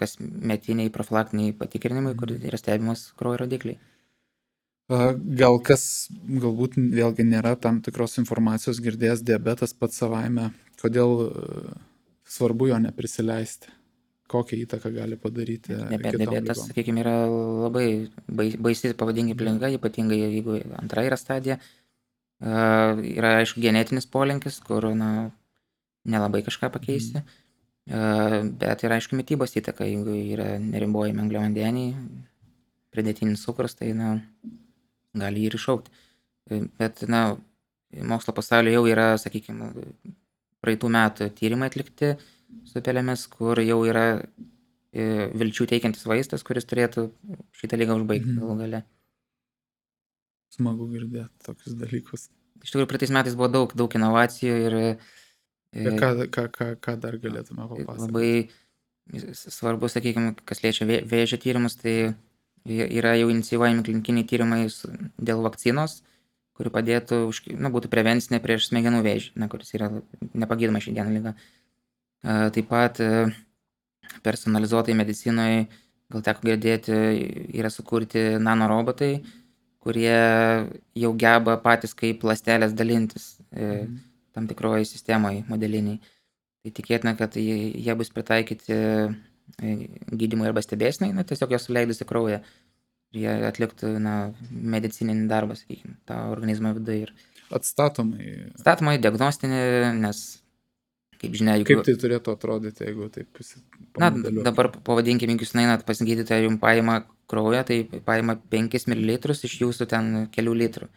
kasmetiniai profilaktiniai patikrinimai, kur yra stebimas kraujo rodikliai. Gal kas galbūt vėlgi nėra tam tikros informacijos girdėjęs diabetas pats savaime, kodėl svarbu jo neprisileisti, kokią įtaką gali padaryti kitom Diabetas, ligom. sakykime, yra labai baisi, pavadinkime, liga, ypatingai jeigu antra yra stadija. Yra, aišku, genetinis polinkis, kur, nelabai kažką pakeisi. Bet yra, aišku, mitybos įtaka, jeigu yra neribojami angliavandeniai, pridėtinis cukrus, tai, gali jį ir iššaukti. Bet, mokslo pasaulyje jau yra, sakykime, praeitų metų tyrimai atlikti su pelėmis, kur jau yra vilčių teikiantis vaistas, kuris turėtų šitą ligą užbaigti galų gale. Smagu girdėti tokius dalykus. Iš tikrųjų, praeitais metais buvo daug inovacijų ir Ką dar galėtume papasakoti? labai svarbu, sakykime, kas liečia vėžio tyrimus, tai yra jau inicijuojami klinikiniai tyrimai dėl vakcinos, kuri padėtų, būtų prevencinė prieš smegenų vėžį, kuris yra nepagydoma šiandien liga. Taip pat personalizuotai medicinoje, gal teko girdėti, yra sukurti nanorobotai, kurie jau geba patys kaip ląstelės dalintis tam tikroje sistemoje modeliniai. Tai tikėtina, kad jie bus pritaikyti gydymui arba stebėsnai, tiesiog jos suleidus į kraują. Ir jie atliktų medicininį darbą, sakykime, tą organizmą viduje. Atstatomai, diagnostinį, nes, kaip žinia, Kaip tai turėtų atrodyti, jeigu taip pamodeliuoti? Dabar pavadinkime, jeigu jūs einat pas gydytoją, jums paima kraują, tai paima 5 ml iš jūsų ten kelių litrų.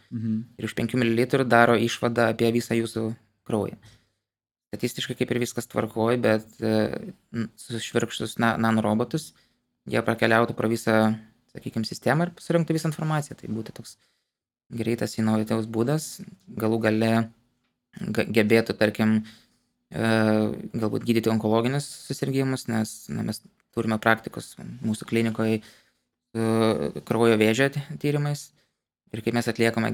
Ir už 5 ml daro išvadą apie visą jūsų kraują. Statistiškai kaip ir viskas tvarkoja, bet sušvirkštus nanorobotus, jie prakeliautų pro visą, sakykime, sistemą ir surinktų visą informaciją. Tai būtų toks greitas inovatyvus būdas, galų gale gebėtų, tarkim, galbūt gydyti onkologinius susirgimus, nes mes turime praktikos mūsų klinikoje kraujo vėžio tyrimais. Ir kai mes atliekame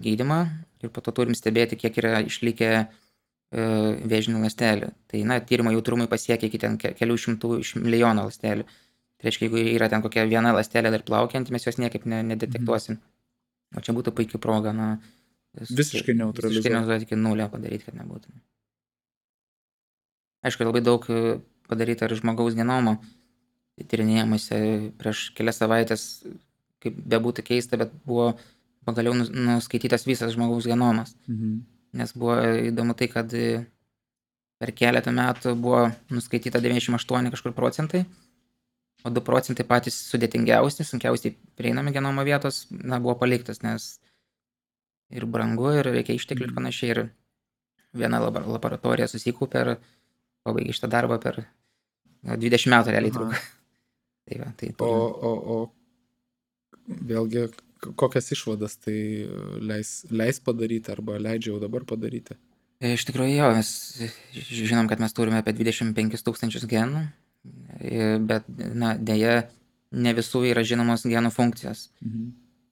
gydymą ir po to turim stebėti, kiek yra išlikę vėžinių ląstelių. Tai, tyrimo jautrumai pasiekia iki ten kelių šimtų iš milijono ląstelių. Tai reiškia, jeigu yra ten kokia viena ląstelė dar plaukianti, mes jos niekaip nedetektuosim. O čia būtų puikia proga, visiškai neutralizuoti iki nulio padaryti, kad nebūtų. Aišku, labai daug padaryta ir žmogaus genomo tyrinėjimuose. Prieš kelias savaitės, kaip bebūtų keista, bet buvo pagaliau nuskaitytas visas žmogaus genomas. Nes buvo įdomu tai, kad per keletą metų buvo nuskaityta 98 kažkur procentai, o 2 procentai patys sudėtingiausi, sunkiausiai prieinami genomo vietos, buvo paliktas, nes ir brangu, ir reikia išteklių ir panašiai. Ir viena laboratorija susikaupė ir pabaigė šitą darbą per 20 metų realiai truko. O vėlgi, kokias išvadas tai leis padaryti arba leidžia jau dabar padaryti? Iš tikrųjų, jo, mes žinom, kad mes turime apie 25 000 genų, bet, deja, ne visų yra žinomos genų funkcijos.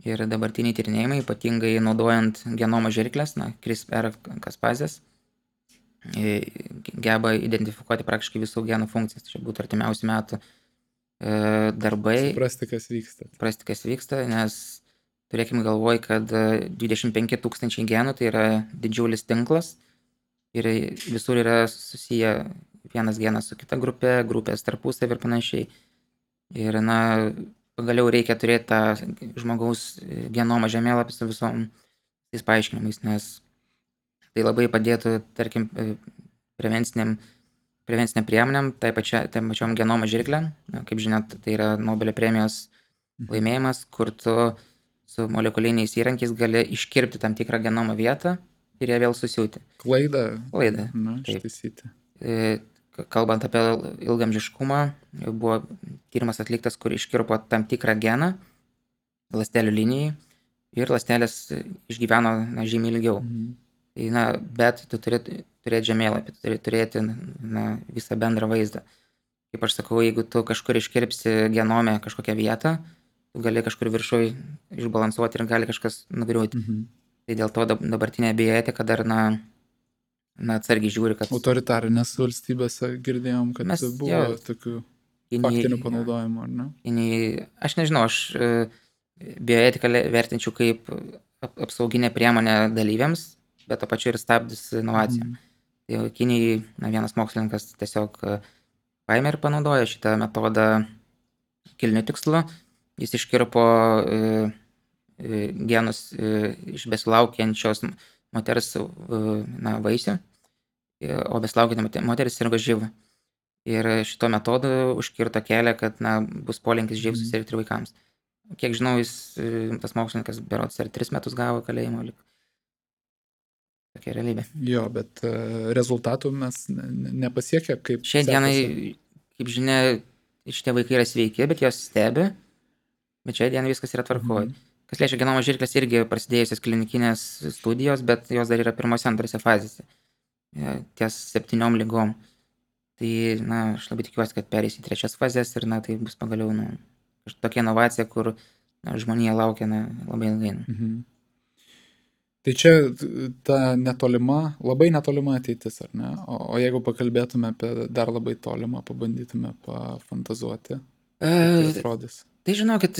Ir dabartiniai tyrinėjimai, ypatingai naudojant genomo žirkles, CRISPR-Cas9, geba identifikuoti praktiškai visų genų funkcijas. Tai būtų artimiausių metų darbai. Suprasti, kas vyksta, nes turėkime galvoj, kad 25 000 genų tai yra didžiulis tinklas ir visur yra susiję vienas genas su kita grupė, grupės tarpusavy ir panašiai. Ir, pagaliau reikia turėti tą žmogaus genomą žemėlapį su visom tais paaiškinimais, nes tai labai padėtų, tarkim, prevenciniam priemonėm, tai pačiom genomo žirklėm. Kaip žinot, tai yra Nobelio premijos laimėjimas, kur tu su molekuliniais įrankiais gali iškirpti tam tikrą genomo vietą ir ją vėl susiūti. Klaidą. Ištaisyti. Kalbant apie ilgamžiškumą, buvo tyrimas atliktas, kur iškirpo tam tikrą geną ląstelių linijai ir ląstelės išgyveno žymiai ilgiau. Bet tu turėti žemėlapį, tu turėti visą bendrą vaizdą. Kaip aš sakau, jeigu tu kažkur iškirpsi genome kažkokią vietą, tu gali kažkur viršui išbalansuoti ir gali kažkas nugriūti. Tai dėl to dabartinė bioetika dar atsargiai žiūri, kad Autoritarinės valstybėse girdėjom, kad mes buvo tokių faktinių panaudojimų, ar ne? Aš nežinau, aš bioetiką vertinčiau kaip apsauginę priemonę dalyviams, bet to pačiu ir stabdis inovacijom. Tai Kinijai vienas mokslininkas tiesiog paėmė ir panaudojo šitą metodą kilniu tikslu. Jis iškirpo genus iš besilaukiančios moters vaisių, o besilaukianti moteris sirgo živ. Ir šito metodu užkirto kelią, kad bus polinkis živ susirgti ir vaikams. Kiek žinau, tas mokslininkas berods ar 3 metus gavo kalėjimo. Tokia realybė. Jo, bet rezultatų mes nepasiekę, kaip Šiai dienai, kaip žinia, šitie vaikai yra sveiki, bet jos stebi, bet šiai dienai viskas yra tvarkoj. Kas liečia genomo žirklės, irgi prasidėjusios klinikinės studijos, bet jos dar yra pirmose, antrose fazėse. Ties 7 ligom. Tai, aš labai tikiuosi, kad perės į 3 fazės ir, tai bus pagaliau, tokia inovacija, kur žmonija laukia labai ilgai. Tai čia ta netolima, labai netolima ateitis, ar ne? O jeigu pakalbėtume apie dar labai tolimą, pabandytume pafantazuoti, tai atrodys. Tai žinokit,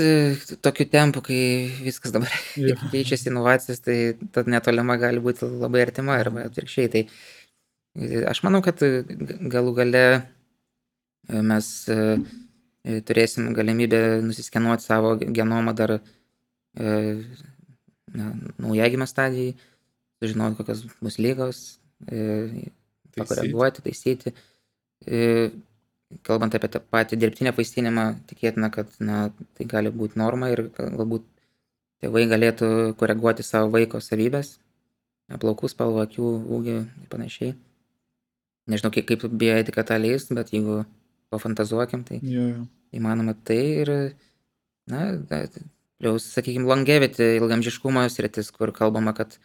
tokiu tempu, kai viskas dabar keičiasi inovacijos, tai ta netolima gali būti labai artima arba atvirkščiai. Tai aš manau, kad galų gale mes turėsim galimybę nusiskenuoti savo genomą dar naujagimio stadijai, sužinoti, kokios bus lygos, pakoreguoti, taisyti. Kalbant apie tą patį dirbtinę apvaistinimą, tikėtina, kad tai gali būti norma ir galbūt tėvai galėtų koreguoti savo vaiko savybės, plaukų spalvą, akių ūgį ir panašiai. Nežinau, kaip bioetika tą leis, bet jeigu pafantazuokim, tai įmanoma tai ir, plius, sakykime, longevity, ilgamžiškumo sritis, kur kalbama, kad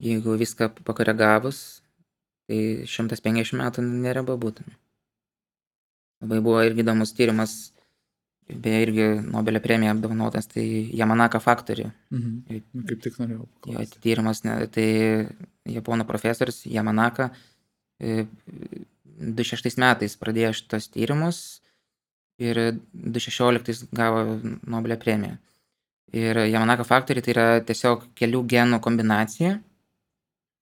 jeigu viską pakoregavus, tai 150 metų nereba būtų. Labai buvo irgi įdomus tyrimas, beje irgi Nobelio premija apdovanotas, tai Yamanaka faktorių. Kaip tik norėjau paklausti. Tyrimas, tai japonų profesorius Yamanaka 2006 metais pradėjo šitos tyrimus ir 2016 gavo Nobelio premiją. Ir Yamanaka faktoriai tai yra tiesiog kelių genų kombinacija.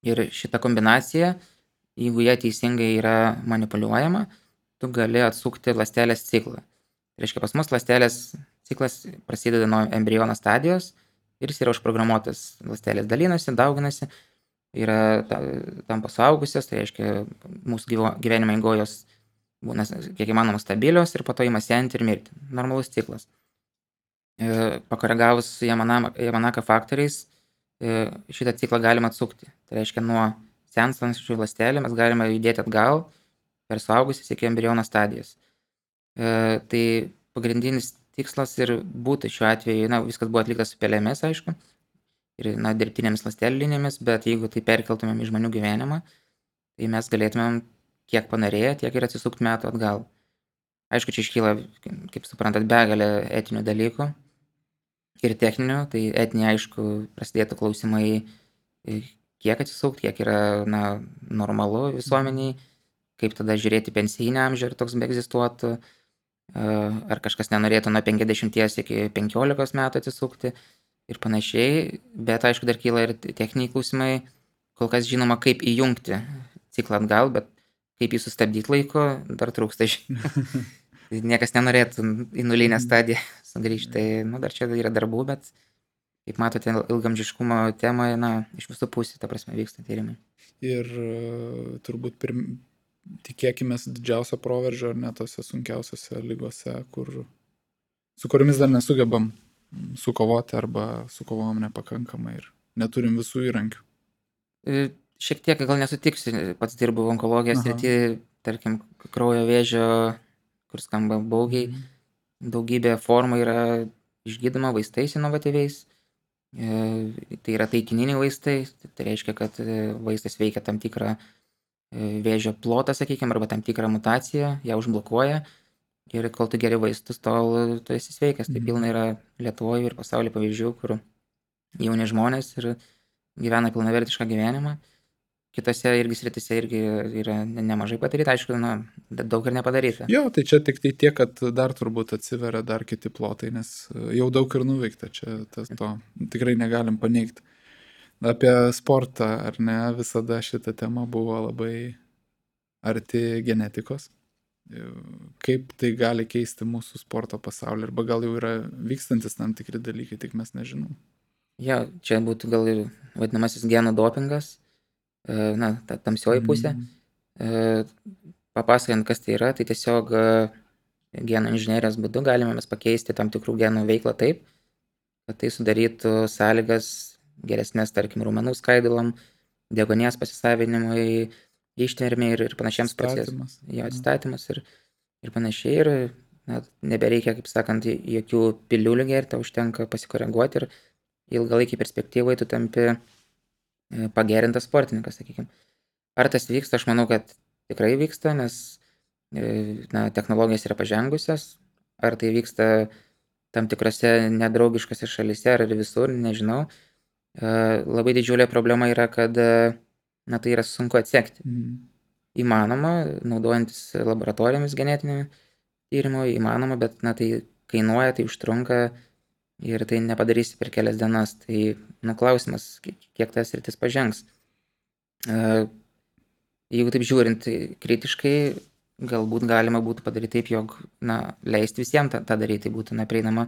Ir šita kombinacija, jeigu jie teisingai yra manipuliuojama, tu gali atsukti ląstelės ciklą. Tai reiškia, pas mus ląstelės ciklas prasideda nuo embriono stadijos ir jis yra užprogramuotas. Ląstelės dalinasi, dauginasi, yra tampa suaugusios, tai reiškia, mūsų gyvenimo eigojos būna kiek įmanoma stabilios ir po to ima senti ir mirti. Normalus ciklas. Pakoregavus Yamanaka faktoriais, šitą ciklą galima atsukti. Tai reiškia, nuo senstančių ląstelių mes galime judėti atgal per suaugusius iki embriono stadijos. Tai pagrindinis tikslas ir būtų šiuo atveju, viskas buvo atliktas su pelėmis, aišku, ir dirbtinėmis ląstelių linijomis, bet jeigu tai perkeltumėm į žmonių gyvenimą, tai mes galėtumėm kiek panorėję, tiek ir atsisukti metų atgal. Aišku, čia iškyla, kaip suprantat, begalė etinių dalykų ir techninių, tai etiniai, aišku, prasidėtų klausimai, kiek atsisukti, kiek yra normalu visuomeniai, kaip tada žiūrėti pensijinį amžių, ar toks beegzistuotų, ar kažkas nenorėtų nuo 50 iki 15 metų atsisukti ir panašiai, bet aišku, dar kyla ir techniniai klausimai, kol kas žinoma, kaip įjungti ciklą atgal, bet kaip jį sustabdyti laiko, dar trūksta žinių. Niekas nenorėtų į nulinę stadiją sugrįžti, tai dar čia yra darbų, bet kaip matote, ilgamžiškumo temoje, iš visų pusių, ta prasme, vyksta tyrimai. Ir turbūt tikėkimės didžiausio proveržio, ar ne tose sunkiausiose lygose, su kuriomis dar nesugebam sukovoti arba sukovom nepakankamai ir neturim visų įrankių. Šiek tiek gal nesutiksiu, pats dirbu onkologijos srity, tarkim, kraujo vėžio, kur skamba baugiai, daugybė formų yra išgydoma vaistais inovatyviais, tai yra taikininiai vaistai, tai reiškia, kad vaistas veikia tam tikrą vėžio plotą, sakykime, arba tam tikrą mutaciją, ją užblokuoja ir kol tu geri vaistus, tol tu esi sveikas. Tai pilna yra Lietuvoje ir pasaulyje pavyzdžių, kur jauni žmonės ir gyvena pilnavertišką gyvenimą. kitose irgi srityse irgi yra nemažai padaryta, aišku, daug ir nepadaryta. Jo, tai čia tik tai tiek, kad dar turbūt atsiveria dar kiti plotai, nes jau daug ir nuveikta, čia to tikrai negalim paneigti. Apie sportą, ar ne, visada šita tema buvo labai arti genetikos. Kaip tai gali keisti mūsų sporto pasaulį, arba gal jau yra vykstantis tam tikri dalykai, tik mes nežinom. Ja, čia būtų gal ir vadinamasis genų dopingas, ta tamsioji pusė. Papasakant, kas tai yra, tai tiesiog genų inžinerijos būdu galime mes pakeisti tam tikrų genų veiklą taip, kad tai sudarytų sąlygas geresnės, tarkim, raumenų skaidulam, deguonies pasisavinimui, ištvermei ir panašiems procesams. Jo, atstatymas ir panašiai. Ir nebereikia, kaip sakant, jokių piliulių gerti, užtenka pasikoreguoti ir ilgalaikį perspektyvai tu tampi pagerintas sportininkas, sakykime. Ar tas vyksta? Aš manau, kad tikrai vyksta, nes technologijos yra pažengusios. Ar tai vyksta tam tikrose nedraugiškose šalyse ar visur, nežinau. Labai didžiulė problema yra, kad tai yra sunku atsekti. Įmanoma, naudojantis laboratorijomis genetinio tyrimo, įmanoma, bet tai kainuoja, tai užtrunka ir tai nepadarysi per kelias dienas. Tai klausimas, kiek tas sritis pažengs. Jeigu taip žiūrint kritiškai, galbūt galima būtų padaryti taip, jog leisti visiems tą daryti, tai būtų prieinama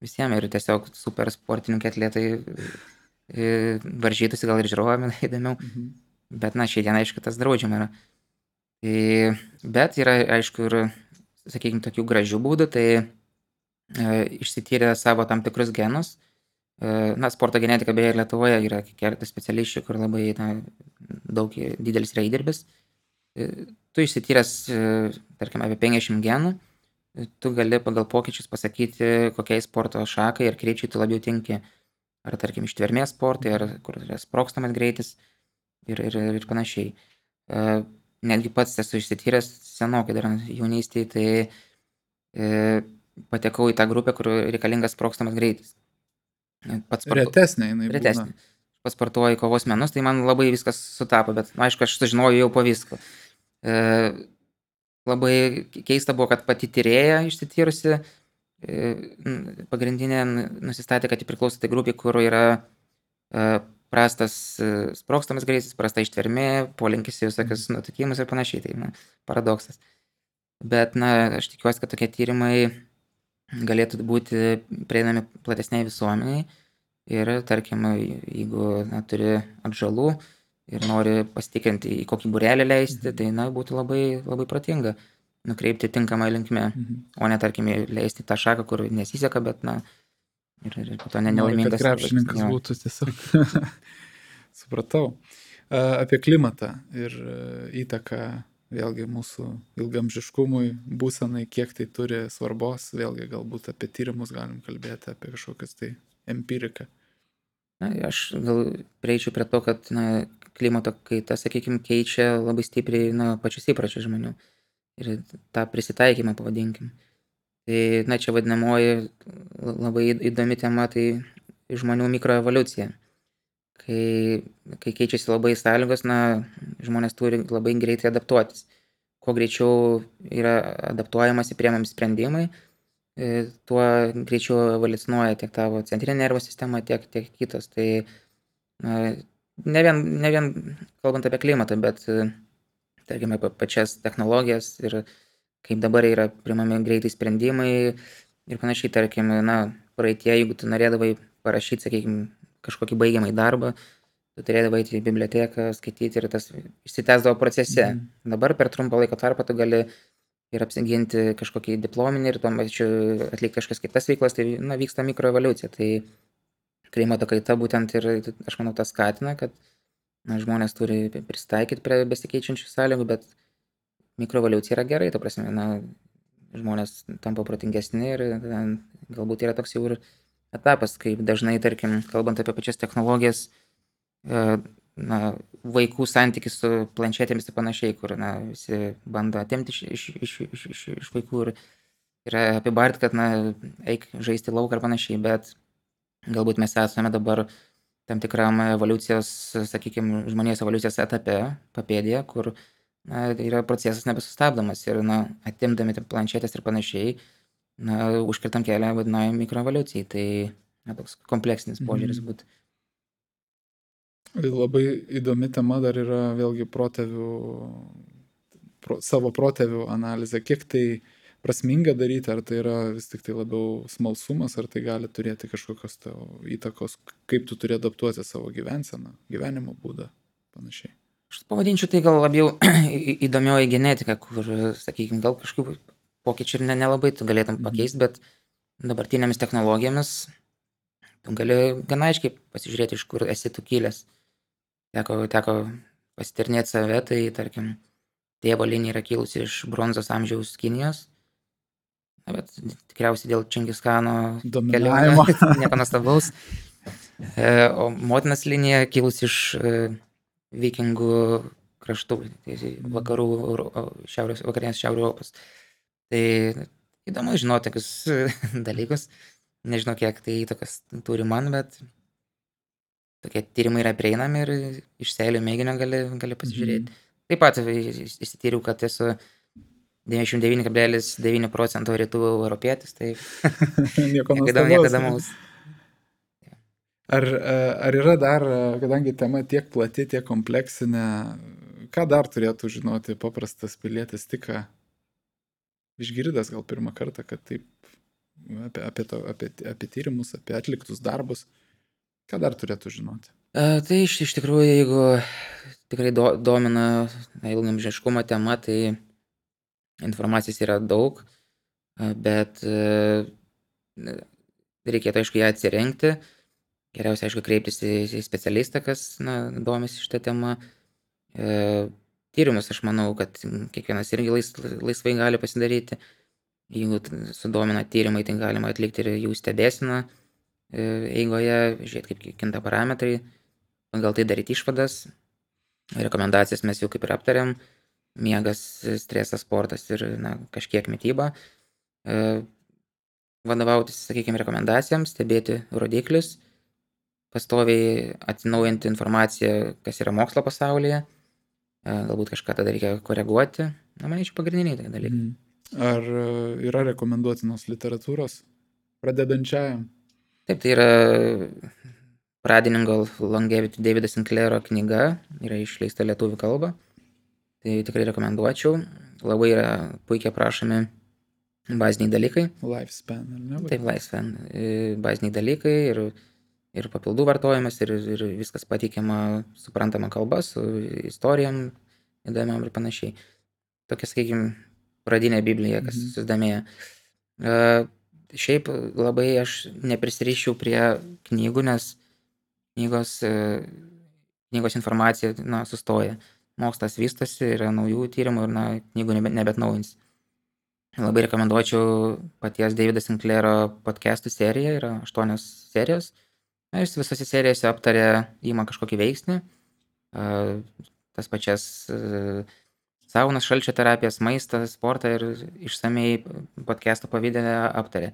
visiems ir tiesiog super sportininkai atletai varžytųsi, gal ir žiūrovami įdomiau, bet šiai dienai, aišku, tas draudžiama yra. Bet yra, aišku, ir, sakykime, tokių gražių būdų, tai išsityrė savo tam tikrus genus. Sporto genetika beje Lietuvoje yra keletas specialistų, kur labai didelis yra įdirbis. Tu išsityręs, tarkim, apie 50 genų, tu gali pagal pokyčius pasakyti, kokiai sporto šakai ir krypčiai tu labiau tinki. Ar, tarkim, ištvermės sportai, ar kur yra sprogstamas greitis ir panašiai. Netgi pats esu išsityręs senokai dar jaunystėje, tai patekau į tą grupę, kur reikalingas sprogstamas greitis. Retesnė jinai būna. Retesnė. Pats sportuoju kovos menus, tai man labai viskas sutapo, bet aišku, aš sužinojau jau po visko. Labai keista buvo, kad pati tyrėja išsityrusi pagrindinė nusistatė, kad priklauso tai grupė, kur yra prastas sprogstamas greitis, prasta ištvermė, polinkis į visokius nutukimus ir panašiai, tai paradoksas. Bet aš tikiuosi, kad tokie tyrimai galėtų būti prieinami platesniai visuomeniai ir, tarkim, jeigu turi atžalų ir nori pasitikrinti, į kokį būrelį leisti, tai būtų labai, labai protinga nukreipti tinkamą linkme, o ne, tarkim, leisti tą šaką, kur nesiseka, bet, ir po to nelaimingas. Kad krepšininkas būtų tiesiog. Supratau. Apie klimatą ir įtaką vėlgi mūsų ilgamžiškumui, būsenai, kiek tai turi svarbos, vėlgi galbūt apie tyrimus galim kalbėti, apie kažkokias tai empiriką. Aš gal prieičiau prie to, kad klimato kaita, sakykime, keičia labai stipriai pačius įpročius žmonių ir tą prisitaikymą, pavadinkim. Tai, čia vadinamoji labai įdomi tema, tai žmonių mikroevoliucija. Kai keičiasi labai sąlygos, žmonės turi labai greitai adaptuotis. Kuo greičiau yra adaptuojamasi, priemami sprendimai, tuo greičiau evoliucionuoja tiek tavo centrinė nervų sistema, tiek kitos. Tai ne vien kalbant apie klimatą, bet tarkime apie pačias technologijas ir kaip dabar yra priimami greitai sprendimai ir panašiai, tarkim, praeitie, jeigu tu norėdavai parašyti, sakykime, kažkokį baigiamąjį darbą, tu turėdavai eiti į biblioteką, skaityti ir tas išsitęsdavo procese. Dabar per trumpą laiko tarpą tu gali ir apsiginti kažkokį diplominį ir tuo pačiu atlikti kažkas kitas veiklas, tai vyksta mikroevoliucija. Tai klimato kaita būtent ir, aš manau, tas skatina, kad žmonės turi prisitaikyti prie besikeičiančių sąlygų, bet mikroevoliucija yra gerai, ta prasme, žmonės tampa protingesni ir galbūt yra toks jau ir etapas, kaip dažnai, tarkim, kalbant apie pačias technologijas, vaikų santykis su planšetėmis ir panašiai, kur visi bando atimti iš vaikų ir yra apibarti, kad eik žaisti lauką ir panašiai, bet galbūt mes esame dabar tam tikram evoliucijos, sakykime, žmonijos evoliucijos etape, papėdėje, kur yra procesas nebesustabdomas ir atimdami planšetės ir panašiai, užkirtam kelią vadinamai mikroevoliucijai. Tai toks kompleksinis požiūris būtų. Labai įdomi tema dar yra vėlgi savo protėvių analizė. Kiek tai prasminga daryti, ar tai yra vis tik tai labiau smalsumas, ar tai gali turėti kažkokios įtakos, kaip tu turi adaptuoti savo gyvenseną, gyvenimo būdą, panašiai. Aš pavadinčiau tai gal labiau įdomioji genetika, kur, sakykime, gal kažkokių pokyčių ir nelabai tu galėtum pakeisti, bet dabartinėmis technologijomis tu gali gana aiškiai pasižiūrėti, iš kur esi tu kilęs. Teko pasitirnėti save, tai tarkim, tėvo linija yra kilusi iš bronzos amžiaus Kinijos, bet tikriausiai dėl Čingischano dominavimo nieko nuostabaus. O motinos linija kilusi iš vikingų kraštų, vakarų, vakarinės Šiaurės Europos. Tai įdomu žinoti tokius dalykus. Nežinau, kiek tai įtakas turi man, bet tokie tyrimai yra prieinami ir iš seilių mėginio gali pasižiūrėti. Taip pat įsityriau, kad esu 99,9% rytų europietis, tai nieko įdomaus. Ar yra dar, kadangi tema tiek plati, tiek kompleksinė, ką dar turėtų žinoti paprastas pilietis, tik išgirdęs gal pirmą kartą, kad taip apie tyrimus, apie atliktus darbus, ką dar turėtų žinoti? Tai iš tikrųjų, jeigu tikrai domina ilgaamžiškumo tema, tai informacijos yra daug, bet reikėtų, aišku, ją atsirinkti. Geriausia, aišku, kreiptis į specialistą, kas domisi šitą temą. Tyrimus, aš manau, kad kiekvienas irgi laisvai gali pasidaryti. Jeigu sudomina tyrimai, tai galima atlikti ir jų stebėseną eigoje, žiūrėti, kaip kinta parametrai, gal tai daryti išvadas. Rekomendacijas mes jau kaip ir aptarėm. Miegas, stresas, sportas ir kažkiek mityba. Vadovautis, sakykime, rekomendacijams, stebėti rodiklius, pastoviai atsinaujinti informaciją, kas yra mokslo pasaulyje. Galbūt kažką tada reikia koreguoti. Manyčiau, pagrindiniai dalykai. Ar yra rekomenduotinos literatūros pradedančiajam? Taip, tai yra pradininko Longevity Davido Sinclairo knyga, yra išleista lietuvių kalba. Tai tikrai rekomenduočiau. Labai yra puikiai aprašomi baziniai dalykai. Lifespan, ar ne? Taip, lifespan. Baziniai dalykai ir papildų vartojimas, ir viskas pateikiama suprantama kalba, su istorijom įdomiam ir panašiai. Tokia, sakykime, pradinė Biblija, kas susidomėjo. Šiaip labai aš neprisiriščiau prie knygų, nes knygos informacija sustoja. Mokslas vystosi, yra naujų tyrimų ir knygų nebetnaujins. Labai rekomenduočiau paties Davido Sinclairo podcastų seriją, yra 8 serijos. Jis visose serijose aptarė, ima kažkokį veiksnį, tas pačias saunas, šalčio terapijas, maistą, sportą ir išsamei podcast'o pavidale aptarė.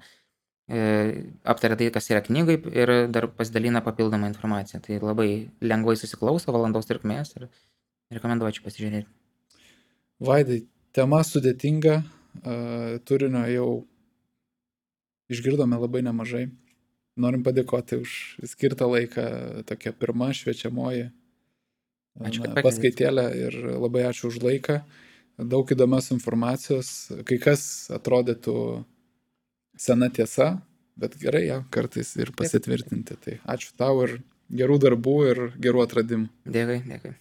Aptarė tai, kas yra knygai ir dar pasidalina papildomą informaciją. Tai labai lengvai susiklauso, valandos trukmės ir rekomenduočiau pasižiūrėti. Vaidai, tema sudėtinga, turinio jau išgirdome labai nemažai. Norim padėkoti už skirtą laiką, tokia pirma šviečiamoji paskaitėlė ir labai ačiū už laiką. Daug įdomios informacijos, kai kas atrodytų sena tiesa, bet gerai ją kartais ir pasitvirtinti. Tai ačiū tau ir gerų darbų ir gerų atradimų. Dėkui.